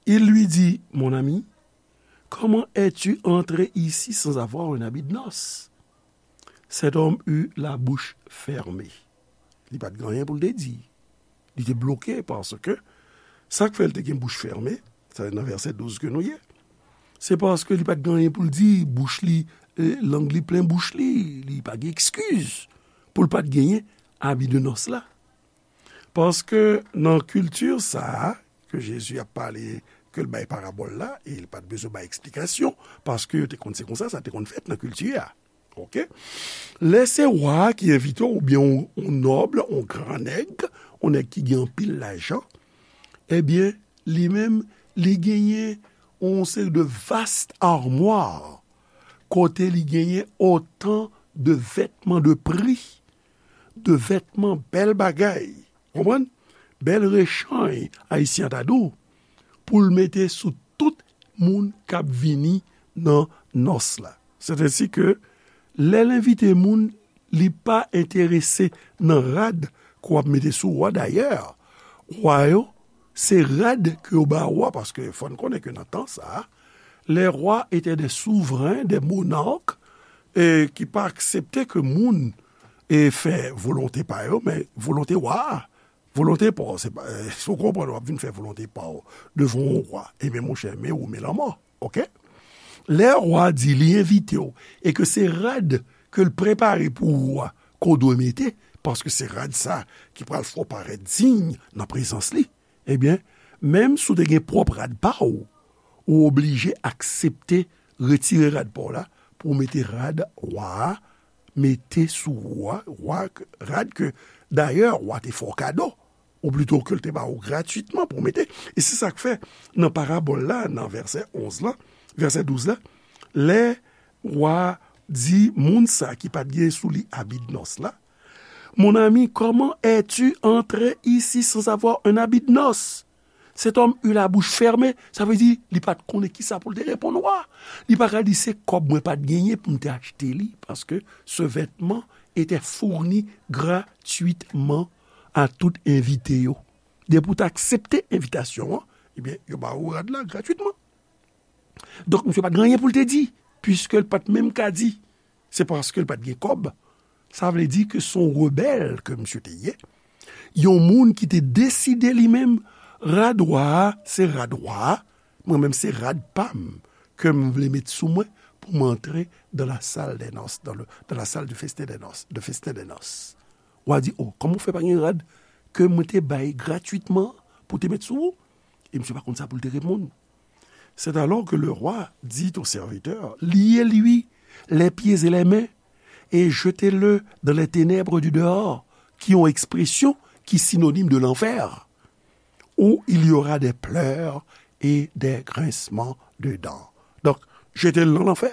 Il lui dit, mon ami, comment es-tu entré ici sans avoir un habit de noces? Cet homme eut la bouche fermée. Li pa t gen anyen pou l te di. Li te bloke paske sa k fè l te gen bouch fèmen, sa nan vèsè douz ke nou ye. Se paske li pa t gen anyen pou l di, bouch li, eh, lang li plen bouch li, li pa gen ekskiz pou l pa t genyen abi de nòs la. Paske nan kilti sa a ke Jezi ap pale, ke l bay parabòl la, e li pa t bezwen bay eksplikasyon, paske yo te konn se konsa sa te konn fèt nan kilti a. Oke? Lè se wa a ki envite w, oubyen yon, yon nòb, yon gran nèg, yon nèg ki gen anpil lajan, ebyen, li menm, li genyen yon seri de vast armwa, kote li genyen otan de vètman de pri, de vètman bèl bagay, konprann? Bèl rechanj, Ayisyen ta di w, pou l mete sou tout moun k ap vini nan nòs la. Sètèsi ke lè l envite moun, li pa enterese nan rad ke w ap mete sou wa. Dayè, wa yo, se rad ke yo ba wa, paske fò n konnen ke nan tan sa a, les rois étaient des souverains, des monarques, e ki pa aksepte ke moun e fè volonte pa yo, men volonte wa a. Volonte pa w, se pa, eh, si w konprann, w ap vin fè volonte pa w devan yon wa. Ebyen, monchè, men ou, men lanmò, oke? Lè wa di li envite w, e ke se rad ke l prepare pou ou a, ke w dwe mete, paske se rad sa ki pral fè w parèt diy nan prezans li, ebyen, menm si w te gen pwòp rad pa w, ou oblije aksepte retire rad pa w la pou w mete rad wa a, mete sou wa, wa, rad ke, dayè, wa te fè w kado, ou plito ke l te ba w gratwitman pou w mete. E se sa k fè, nan parabòl la, nan vèsè onz la, vèsè douz la, lè wa di moun sa ki pa t gen sou li abi de nòs la, mon ami, comment es-tu entré ici sans avoir un habit de noces? Cet homme eut la bouche fermée, sa vle di, li pa t konnen kisa pou l te reponn wa. Li pa ka di, se kòb mwen pa t genyen pou m te achte li, paske ce vêtement était fourni gratuitement à tout envite yo. Depi w te aksepte envitasyon an, ebyen, yo ba ou rad la gratwitman. Donk, misye pa t gen anyen pou l te di, piske l pa t menm ka di. Se paske l pa t gen kòb. Sa vle di ke se yon rebèl ke misye te ye. Yon moun ki te deside li menm, rad wa a, se rad wa a, mwen menm se rad pa m ke m vle met sou mwen pou m antre dans la salle des noces, dans le, dans la salle du festin des noces, de festin des noces. Wa di, o, kòman w fè pa gen rad ke mwen te bay gratwitman pou te met sou ou? E misye pa konn sa pou l te reponn. C'est alors que le roi dit au serviteur, liez-lui les pieds et les mains et jetez-le dans les ténèbres du dehors, qui ont expression qui est synonyme de l'enfer, où il y aura des pleurs et des grincements de dents. Donk, jete l nan lanfè,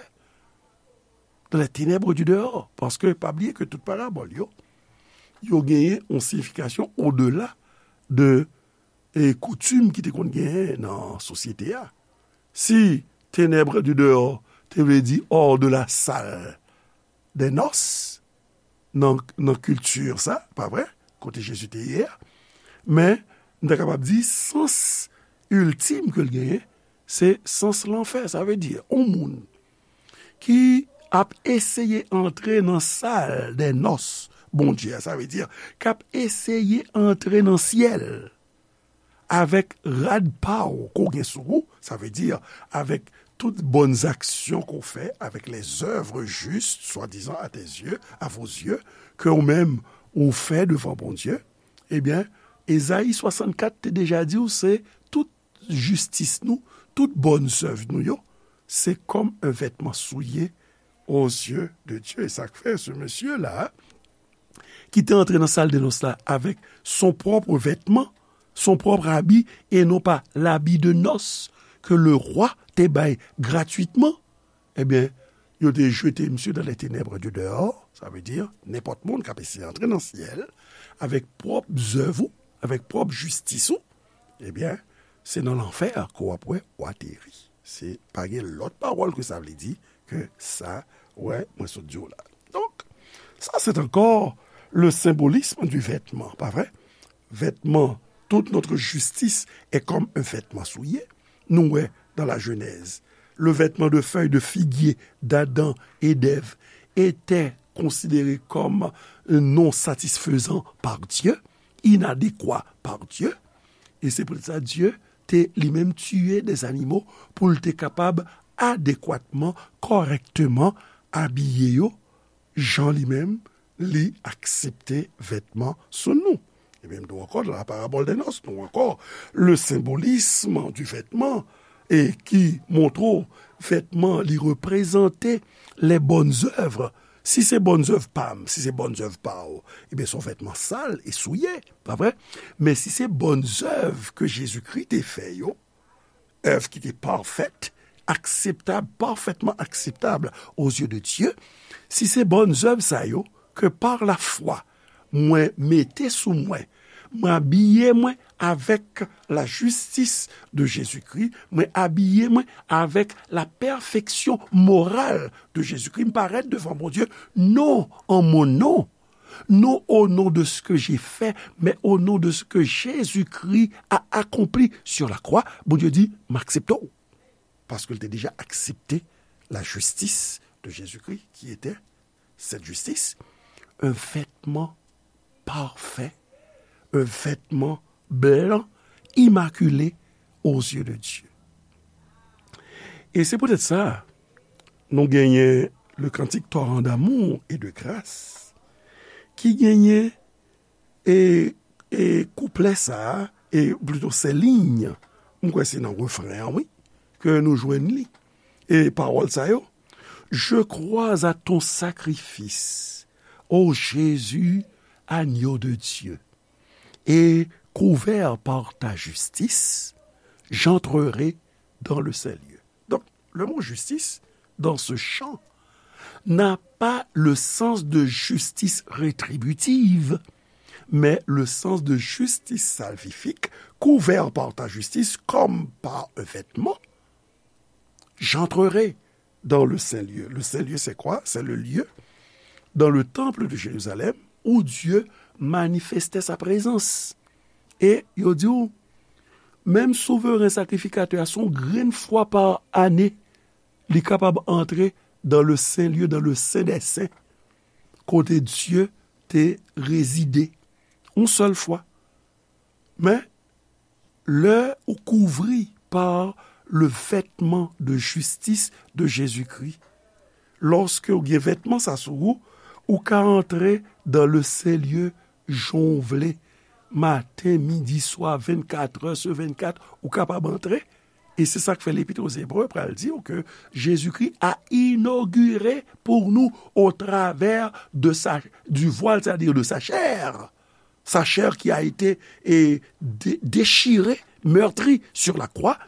dans les ténèbres du dehors, paske pa bliye ke tout parabòl yo, yo genyen yon siyifikasyon odela de e koutim ki te konn genyen nan sosyete a. Si ténèbres du dehors te vle di hors de la salle des noces, nan, nan kilti sa, pa vre? Kote Jezi te ye a. Men, nou ta kapab di, sans iltim ke l genyen, se sans lanfè. Sa vle di, yon moun ki ap eseye antre nan salle des noces Bondye a, sa vle di, k ap eseye antre nan syèl avèk rad pa w ke w gen sou ou, sa vle di, avèk tout bòn aksyon ke w fè, avec les œuvres justes, swadizan, à tes yeux, à vos yeux, ke w menm ou fè devan Bondye, ebyen, Ezayi swasannkat te deja di w, se tout jistis nou, tout bòn zèv nou yo, se comme un vêtement souillé aux yeux de Dieu. E sa k fè, se mesye la, ki te antre nan salle des noces la avec son propre vêtement, son propre habit, et non pas l'habit de noces que le roi te bay gratuitement, ebyen, yo te jete misye dans les ténèbres du dehors, sa vle di, nenpòt moun k ap eseye antre nan syèl, avèk pwòp zèv ou, avèk pwòp jistis ou, ebyen, se nan lanfè ke w ap wè w ateri. Se pa gen lòt pawòl ke sa vle di ke sa, wè, mwen sot di w la. Donk, ça, c'est encore le symbolisme du vêtement, pa vre? Vêtement, toute notre justice est comme un vêtement souillé. Nou wè dans la Genèse, le vêtement de feuilles de figuier d'Adam et d'Ève était considéré comme non satisfaisant par Dieu, inadéquat par Dieu. E se poutèt sa Dye te li menm tiye de zanimo pou l te kapab adekwatman, kòrèkteman abiye yo jan li menm li aksepte vètman sou nou. E menm nou ankò, dans la parabole des noces, nou ankò, le symbolisme du vêtement, e ki montre w vètman li reprezante les bonnes œuvres. Si se bonnes œuvres pa m, si se bonnes œuvres pa w, ebyen se yon vètman sal e souye, pa vre? Men si se bonnes œuvres ke Jezikri te fè yo, œuvres ki te parfaites, acceptables, parfaitement acceptables aux yeux de Dieu, si se bonnes œuvres sa yo, ke par la foi, mwen mete sou mwen, mwen abiye mwen avèk la justice de Jésus-Christ, mwen abiye mwen avèk la perfection morale de Jésus-Christ, m parèt devan Bondye, non en mon nom, non au nom de ce que j'ai fait, mais au nom de ce que Jésus-Christ a accompli sur la croix. Bondye di, m aksepte w. Paske l te deja aksepte la justice de Jésus-Christ, qui était cette justice, un vêtement parfait, un vêtement blanc, immaculé aux yeux de Dieu. E se poutèt sa, nou genyen le cantique Torrent d'amour et de grâce, ki genyen e, e kouplè sa a, e plito se liy, m kwè se nan refren an, wi, ke nou jwenn li. E pawòl sa yo, Je crois à ton sacrifice, ô Jésus, agneau de Dieu, et couvert par ta justice, j'entrerai dans le saint lieu. Donc, le mot justice, dans ce chant, n'a pas le sens de justice rétributive, mais le sens de justice salvifique, couvert par ta justice comme par un vêtement. J'entrerai dans le saint lieu. Le saint lieu, c'est quoi? C'est le lieu dans le temple de Jérusalem où Dieu manifestait sa présence. E yo di w, menm souveren sakrifikatè a, se yon grenn fwa pa ane, li kapab antre dans le saint lieu, dans le saint des saints, kote Dye te rezide, yon sèl fwa. Men, lè ou kouvri par le vêtement de justice de Jésus-Christ, lòske ou gen vètman sa sou ou, ou ka antre dans le saint lieu jan w vle, maten, midi, swa, vennkat è sur vennkat, ou kapab antre. E se sa k fè Lepit aux Hébreux pral di w ke Jésus-Christ a inauguré pour nous au travers de sa, du voile, c'est-à-dire de sa chair. Sa chair qui a été, eh, dé-, déchirée, meurtrie sur la croix,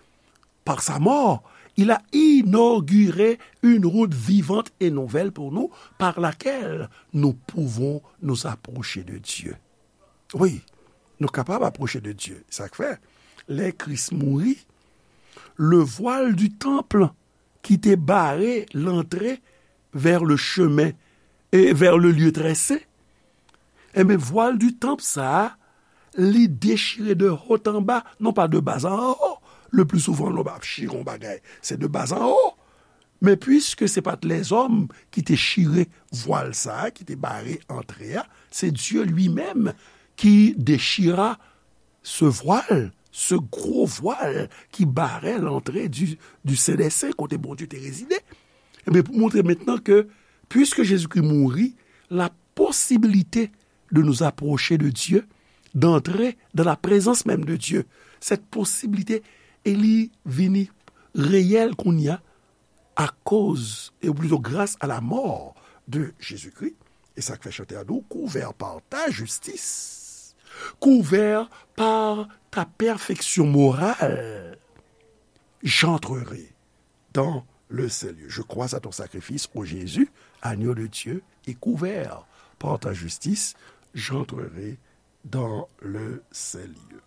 par sa mort, il a inauguré une route vivante et nouvelle pour nous, par laquelle nous pouvons nous approcher de Dieu. Wi, nou kapab apwoche de Dye. Sa k fè, lè Kris mouri, le voile du temple ki te bare lantre vers le chemin et vers le lieu très saint, enben, vwal di tanp sa a, li dechire de haut en bas, non pa de bas en haut. Le pli souvan, lè w ap chire yon bagay, se de bas en haut. Men piske se pa t lèzòm ki te chire vwal sa a, ki te bare antre a, se Dieu lui-même qui déchira ce voile, ce gros voile qui barrait l'entrée du, du Saint des Saints, kote Bondye te rezide. Ebyen, pou montre mentnan ke, puiske Jezikri mouri, la possibilité de nous approcher de Dieu, d'entrer dans la présence même de Dieu, cette possibilité, e li vini reyèl kounye a, akoz, e plito gras a la mort de Jésus-Christ. E sa k fè chantè a di w, couvert par ta justice, couvert par ta perfection morale, j'entrerai dans le saint lieu. Je crois à ton sacrifice, ô Jésus, agneau de Dieu, et couvert par ta justice, j'entrerai dans le saint lieu.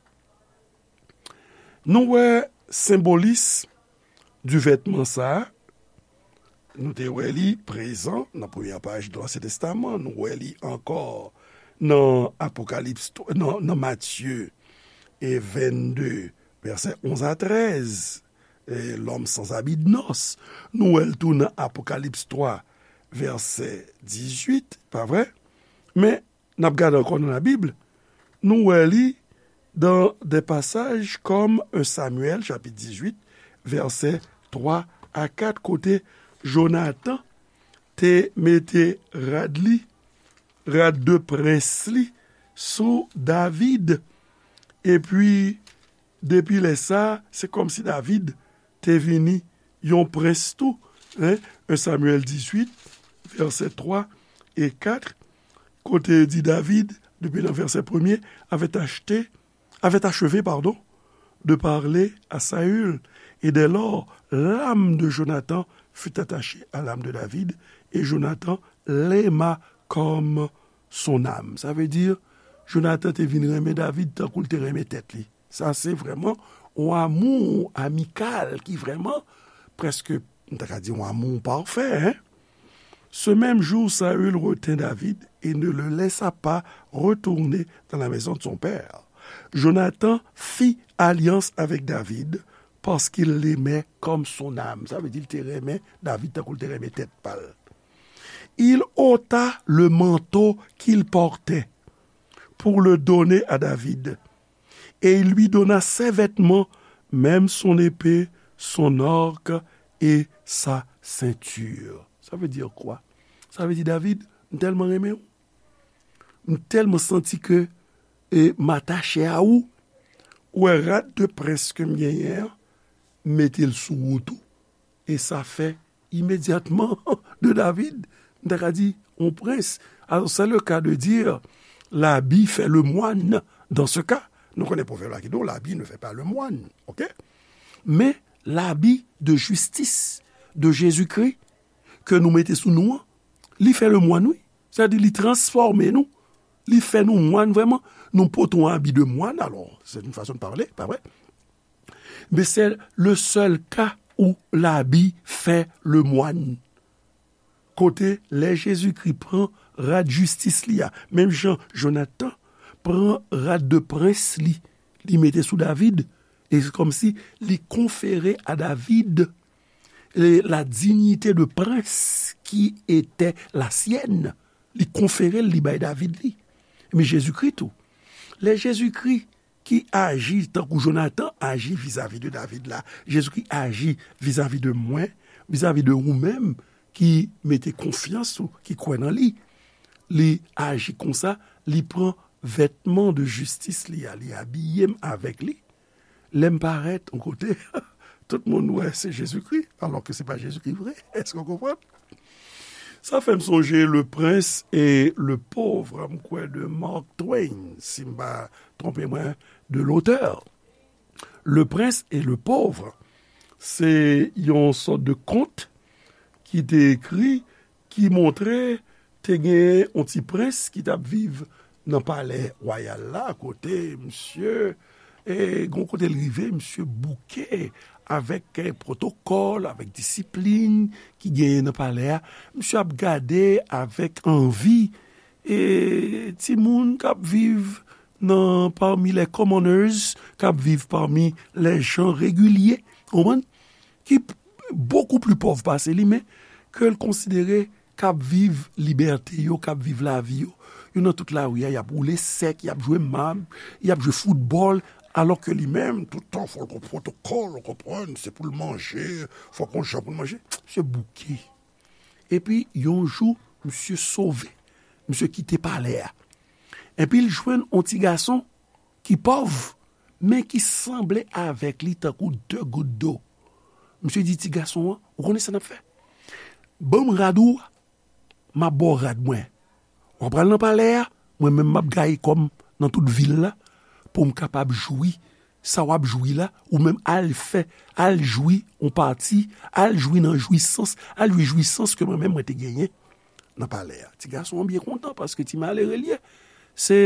Nou wè senbolis di vètman sa a, nou te wè li prezan nan premyè paj de Ansyen Testaman, nou wè li ankò nan Apokalips, nan, nan Matye e vennde, vèsè onz a trèz, eh, l'homme sans habit de noces. Nou wè l tou nan Apokalips twa, vèsè dizuit, pa vre? Men, n ap gade ankò nan Labib, nou wè li dans des passages comme un Samuel, chapit dizuit, vèsè twa a kat, kote Jonatan te mete rad li, rad de prens li, sou David. Epi, depi lè sa, se kòmsi David te vini yon prens tou, en, en Samyèl dizuit, vèsè twa e kat, kote di David, depi nan vèsè premye, avait acheté, avait achevé, pardon, de parler à Saül, et dès lors, l'âme de Jonathan fut attachée à l'âme de David, et Jonathan l'aima comme son âme. Sa vle di, Jonatan te vin renmen David tankou l te renmen tèt li. Sa se vrèman yon amou amikal ki vrèman prèske, m ta ka di, yon amou pafè, en. Ce même jour, Saül retint David et ne le laissa pas retourner dans la maison de son père. Jonathan fit alliance avec David parce qu'il l'aimait comme son âme. Sa vle di l te renmen David tankou l te renmen tèt pa l. Il ôta le manteau qu'il portait pour le donner à David. Et il lui donna ses vêtements, même son épée, son arc et sa ceinture. Sa vle di kwa? Sa vle di, David, m tèlman renmen w. M tèlman santi ke, e, m atache a ou. Ou wè rad de prens ke m genyen an, m mete l sou ou tou. E sa fè imedyatman de David, m ta ka di, yon prens. Alors, c'est le cas de dire, l'habit fait le moine dans ce cas. Nou konnen pwovèb la ki di w, l'habit ne fait pas le moine, ok? Men, l'habit de justice de Jésus-Christ ke nou mete sou nou an, li fè le moine, wi. Sa vle di, li transfòme nou. Li fè nou moine vrèman. Nou pote yon abi de moine, alors, c'est une façon de parler, pa vre? Mais c'est le seul cas où l'habit fait le moine. Kote lè Jezikri pran rad jistis li a, menm jan Jonatan pran rad de prens li, li mete sou David, e se kòmsi li konfere a David, e, la dignité de prince qui était la sienne. Li konfere l, li bay David li. Men Jezikri tou. Lè Jezikri ki aji tankou Jonatan aji vizavi de David la, Jezikri aji vizavi de mwen, vizavi de ou menm ki mete konfyans ou, ki kwè nan li. Li aji konsa, li pran vètman de jistis li a, li abiye m avèk li. Lè m parèt yon kote, tout moun wè se Jezikri, alò ke se pa Jezikri vre. Èske w konprann? Sa fè m sonje Le Prince et le Pauvre, m kwè de Mark Twain, si m pa twonpe mwen de lotè. Le Prince et le Pauvre, se yon sòt de kont ki te ekri, ki montre te gen yon ti prens ki t ap viv nan palè wayal la, kote misye, e, gon kote l rive, misye bouke avèk, e, pwotokòl, avèk disiplin ki genyen nan palè a. Misye ap gade avèk anvi, e, timoun k ap viv nan, parmi les commoners, k ap viv parmi les gens réguliers, konprann? Ki bokou pli pòv pase li, men ke l konsidere k ap viv libète yo, k ap viv lavi yo. Yo nan tout lari a, y ap woule sèk, y ap jwe mab, y ap jwe foutbòl, alò ke li menm, tout tan, fò l gon pwotokòl, ou konprann, se pou l manje, fò gon jan pou l manje. Misye bouke. Epi, yon jou, misye sove. Misye kite palè a. Epi, l jwenn yon ti gason ki pòv, men ki sanble avèk li tankou de gout dlo. Misye di ti gason an, ou konnen sa n ap fè? Ban m rad ou a, m ap ba w rad mwen. W ap pral nan palè a, mwen menm m ap gaye kò m nan tout vil la, pou m kapab jwi sa w ap jwi la, ou menm al fè, al jwi yon pati, al jwi nan jwisans, al jwi jwisans ke mwen menm mwen te genyen nan palè a. Ti gason an byen kontan paske ti malere l ye. Se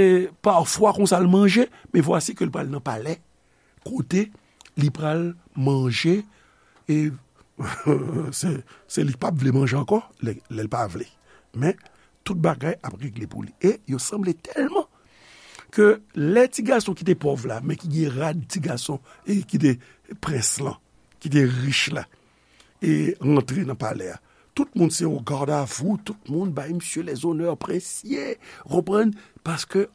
pafwa konsa l manje, men vwasi ke l pral nan palè kote li pral manje, e se, se li k p ap vle manje ankò, lè, lè l pa vle. Men, tout bagay ap regle pou li. E yo sanble tèlman ke lè ti gason ki te pòv la, men ki gen rad ti gason, e ki te prens lan, ki te rich la, e rantre nan palè a. Tout moun se yon gardavou, tout moun bay misye lèzonè prensye, ou konprann? Paske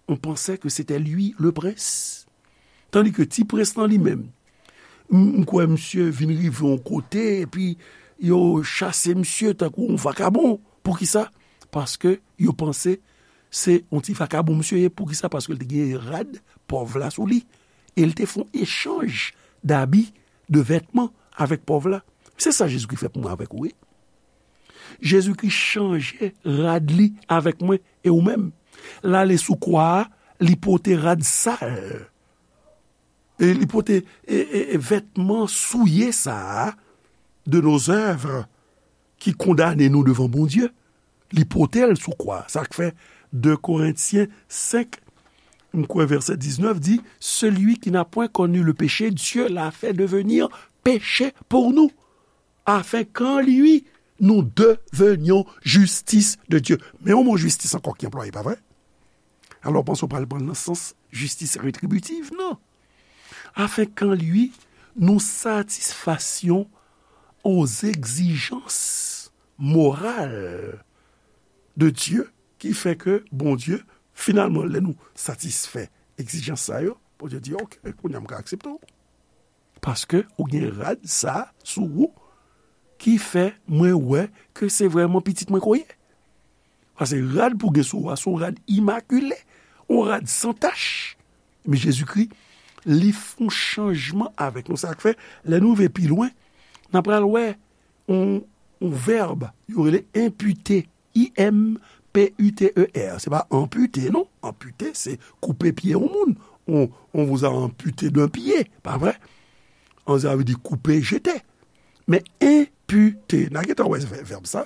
on pansè ke sete li le prens. Tandi ke ti prens lan li menm, m, m kwè misye vin rive yon kote, epi yo chase misye tankou yon vakabon. Poukisa? Paske yo panse se yon ti vakabon misye ye. Poukisa? Paske l te gen rad pòv la sou li. E l te fè yon echanj dabi, de vètman avèk pòv la. Se sa Jezikri fè pou mwen avèk ou, wi. Jezikri chanje rad li avèk mwen e ou menm. L ale sou kwa a, li pote rad sal. E li pote, e, e, e vètman souye sa a, de nos œuvres, ki kondane nou devan Bondye. Li pote l sou kwa. Sa k fè de Korentyen senk, m kwè vèsè diznèf di, celui qui n'a point connu le péché, Dieu l'a fait devenir péché pour nous, afin qu'en lui nous devenions justice de Dieu. Men yon mo jistis ankò ki anplwaye, pa vre? Alò, w panse w pral pran l nan sans jistis retribitiv? Non. Afin qu'en lui nous satisfassions aux exigences morales de Dieu, ki fè ke Bondye, finalman, lè nou satisfè egzijans sa yo, Bondye di, "Ok, kounye a m ka aksepte w." Paske ou gen rad sa sou ou ki fè mwen wè ke se vrèman pitit mwen ke w ye. Paske rad pou gen sou ou a, se yon rad imakile, yon rad san tach. Men Jezikri, li fè yon chanjman avèk nou. Sa k fè, lè nou rive pi lwen, n a pral wè yon, yon vèb, yo rele enpite. I M P U T E R. Se pa anpite, non. Anpite, se koupe pye yon moun. On, on vous a amputé d'un pied, pa vre? An, sa vle di koupe, jete. Men enpite, n a gentan wè vè-, vèb sa.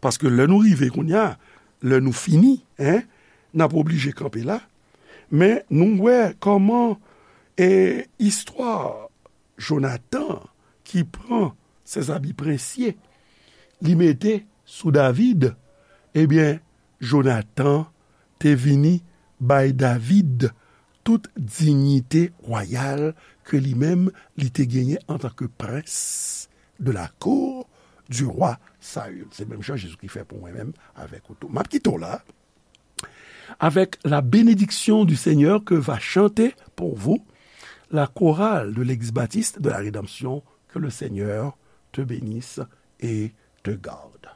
Paske lè nou rive kounye a, lè nou fini, en, n ap oblije kanpe la. Men nou wè kòman, e, istwa Jonatan ki pran sèzabi prensye, li mete sou David, ebyen, Jonatan te vini bay David tout diyite wayal ke li menm li te genyen antanke prens de la cour du roi Saül. Se menm jan Jezikri fè pou mwen menm avèk ou tou. M ap kite w la avec la bénédiction du Seigneur que va chanter pour vous la chorale de l'Église baptiste de la rédemption. Que le Seigneur te bénisse et te garde.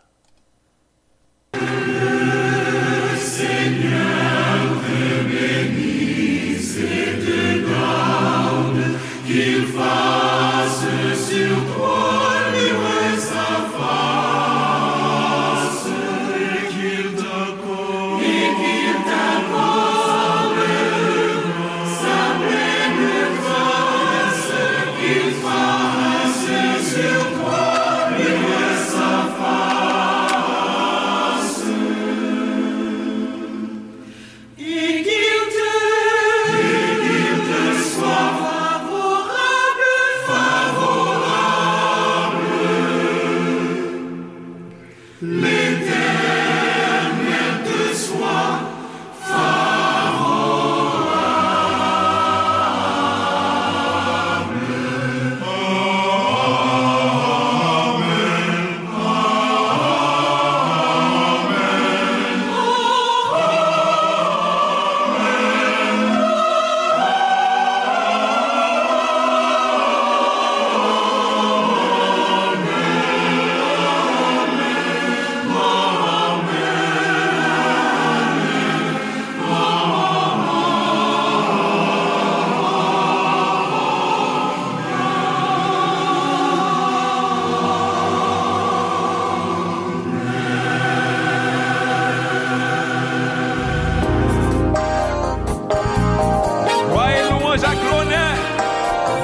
Glwa e louwanj ak lonè,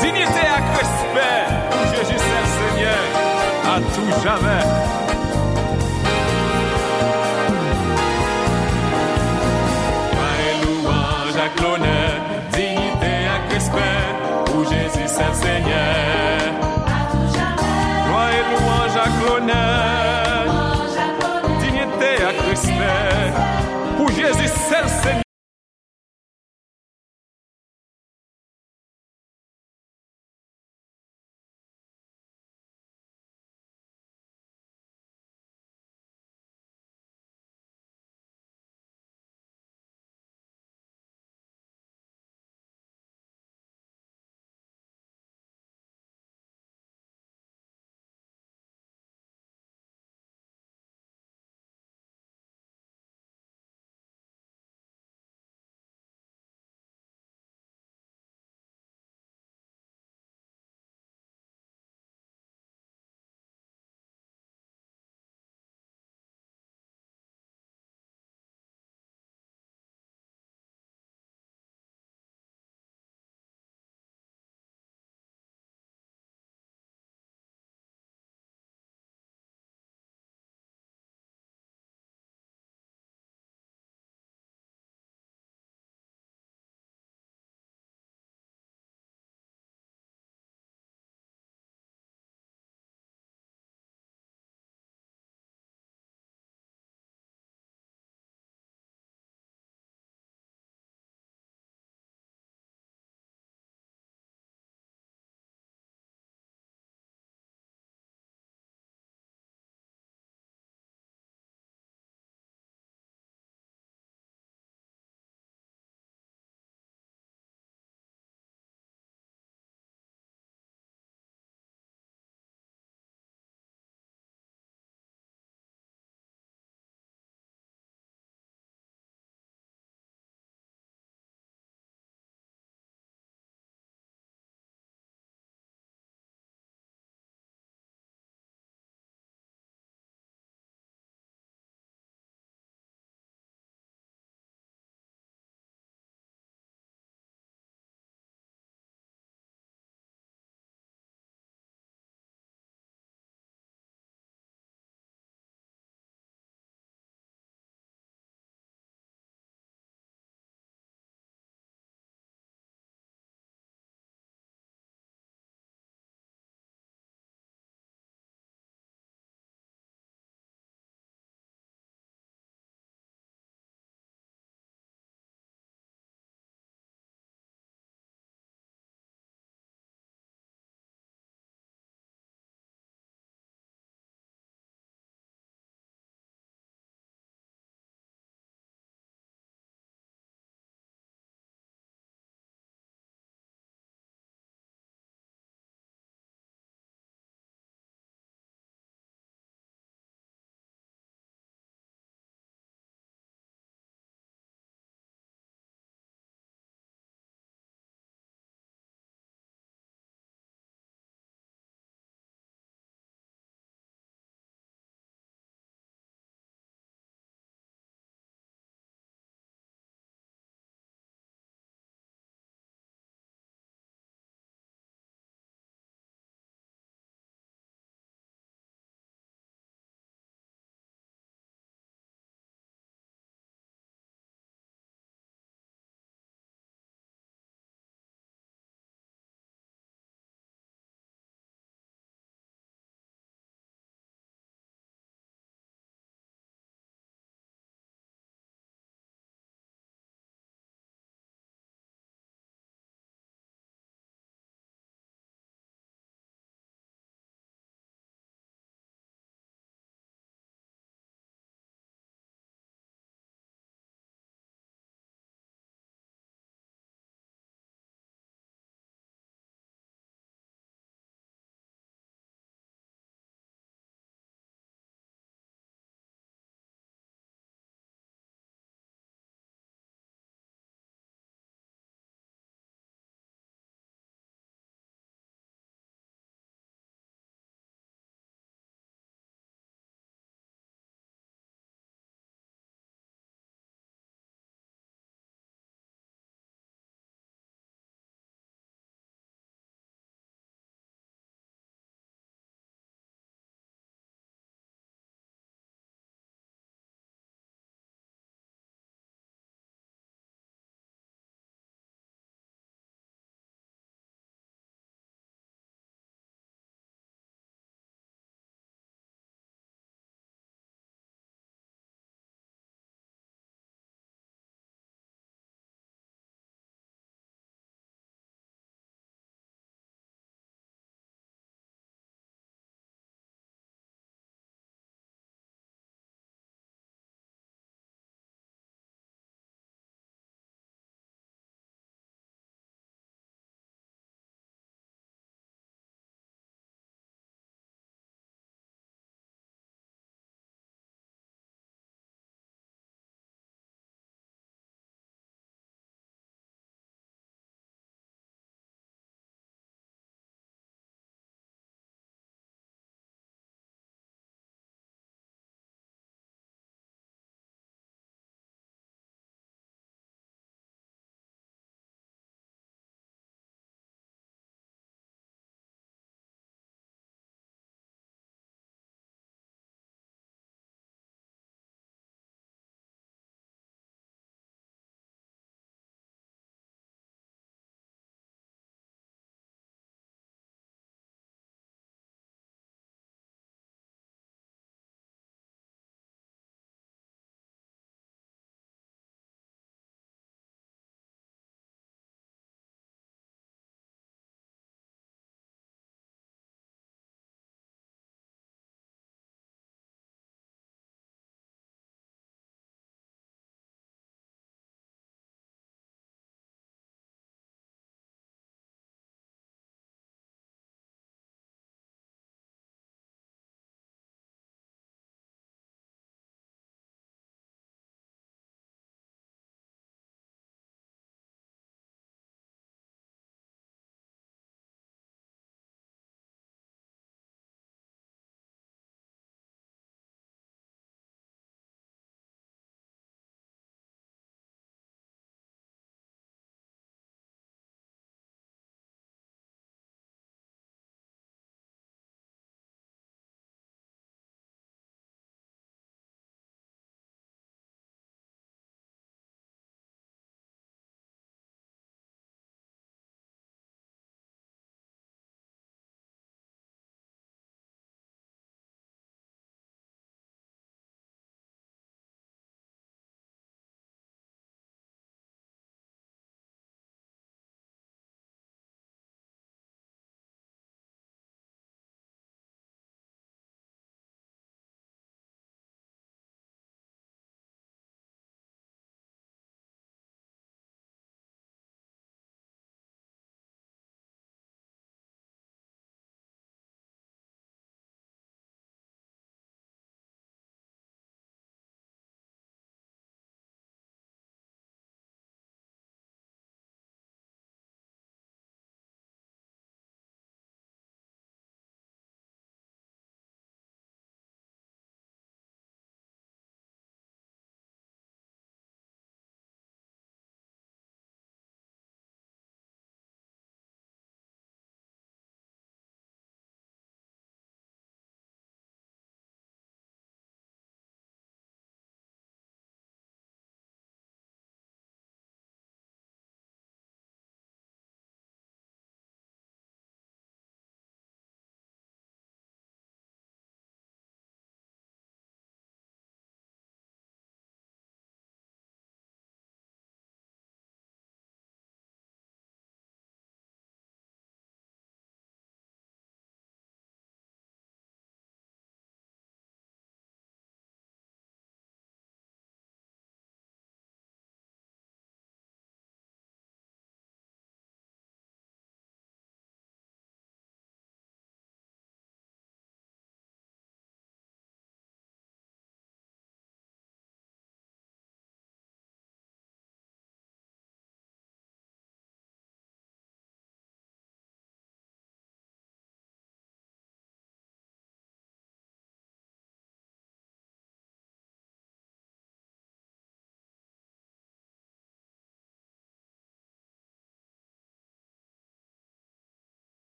diyite ak respè pou Jezi sèl Senyè, a tou jamè. Glwa e louwanj ak lonè, diyite ak respè pou Jezi sèl Senyè,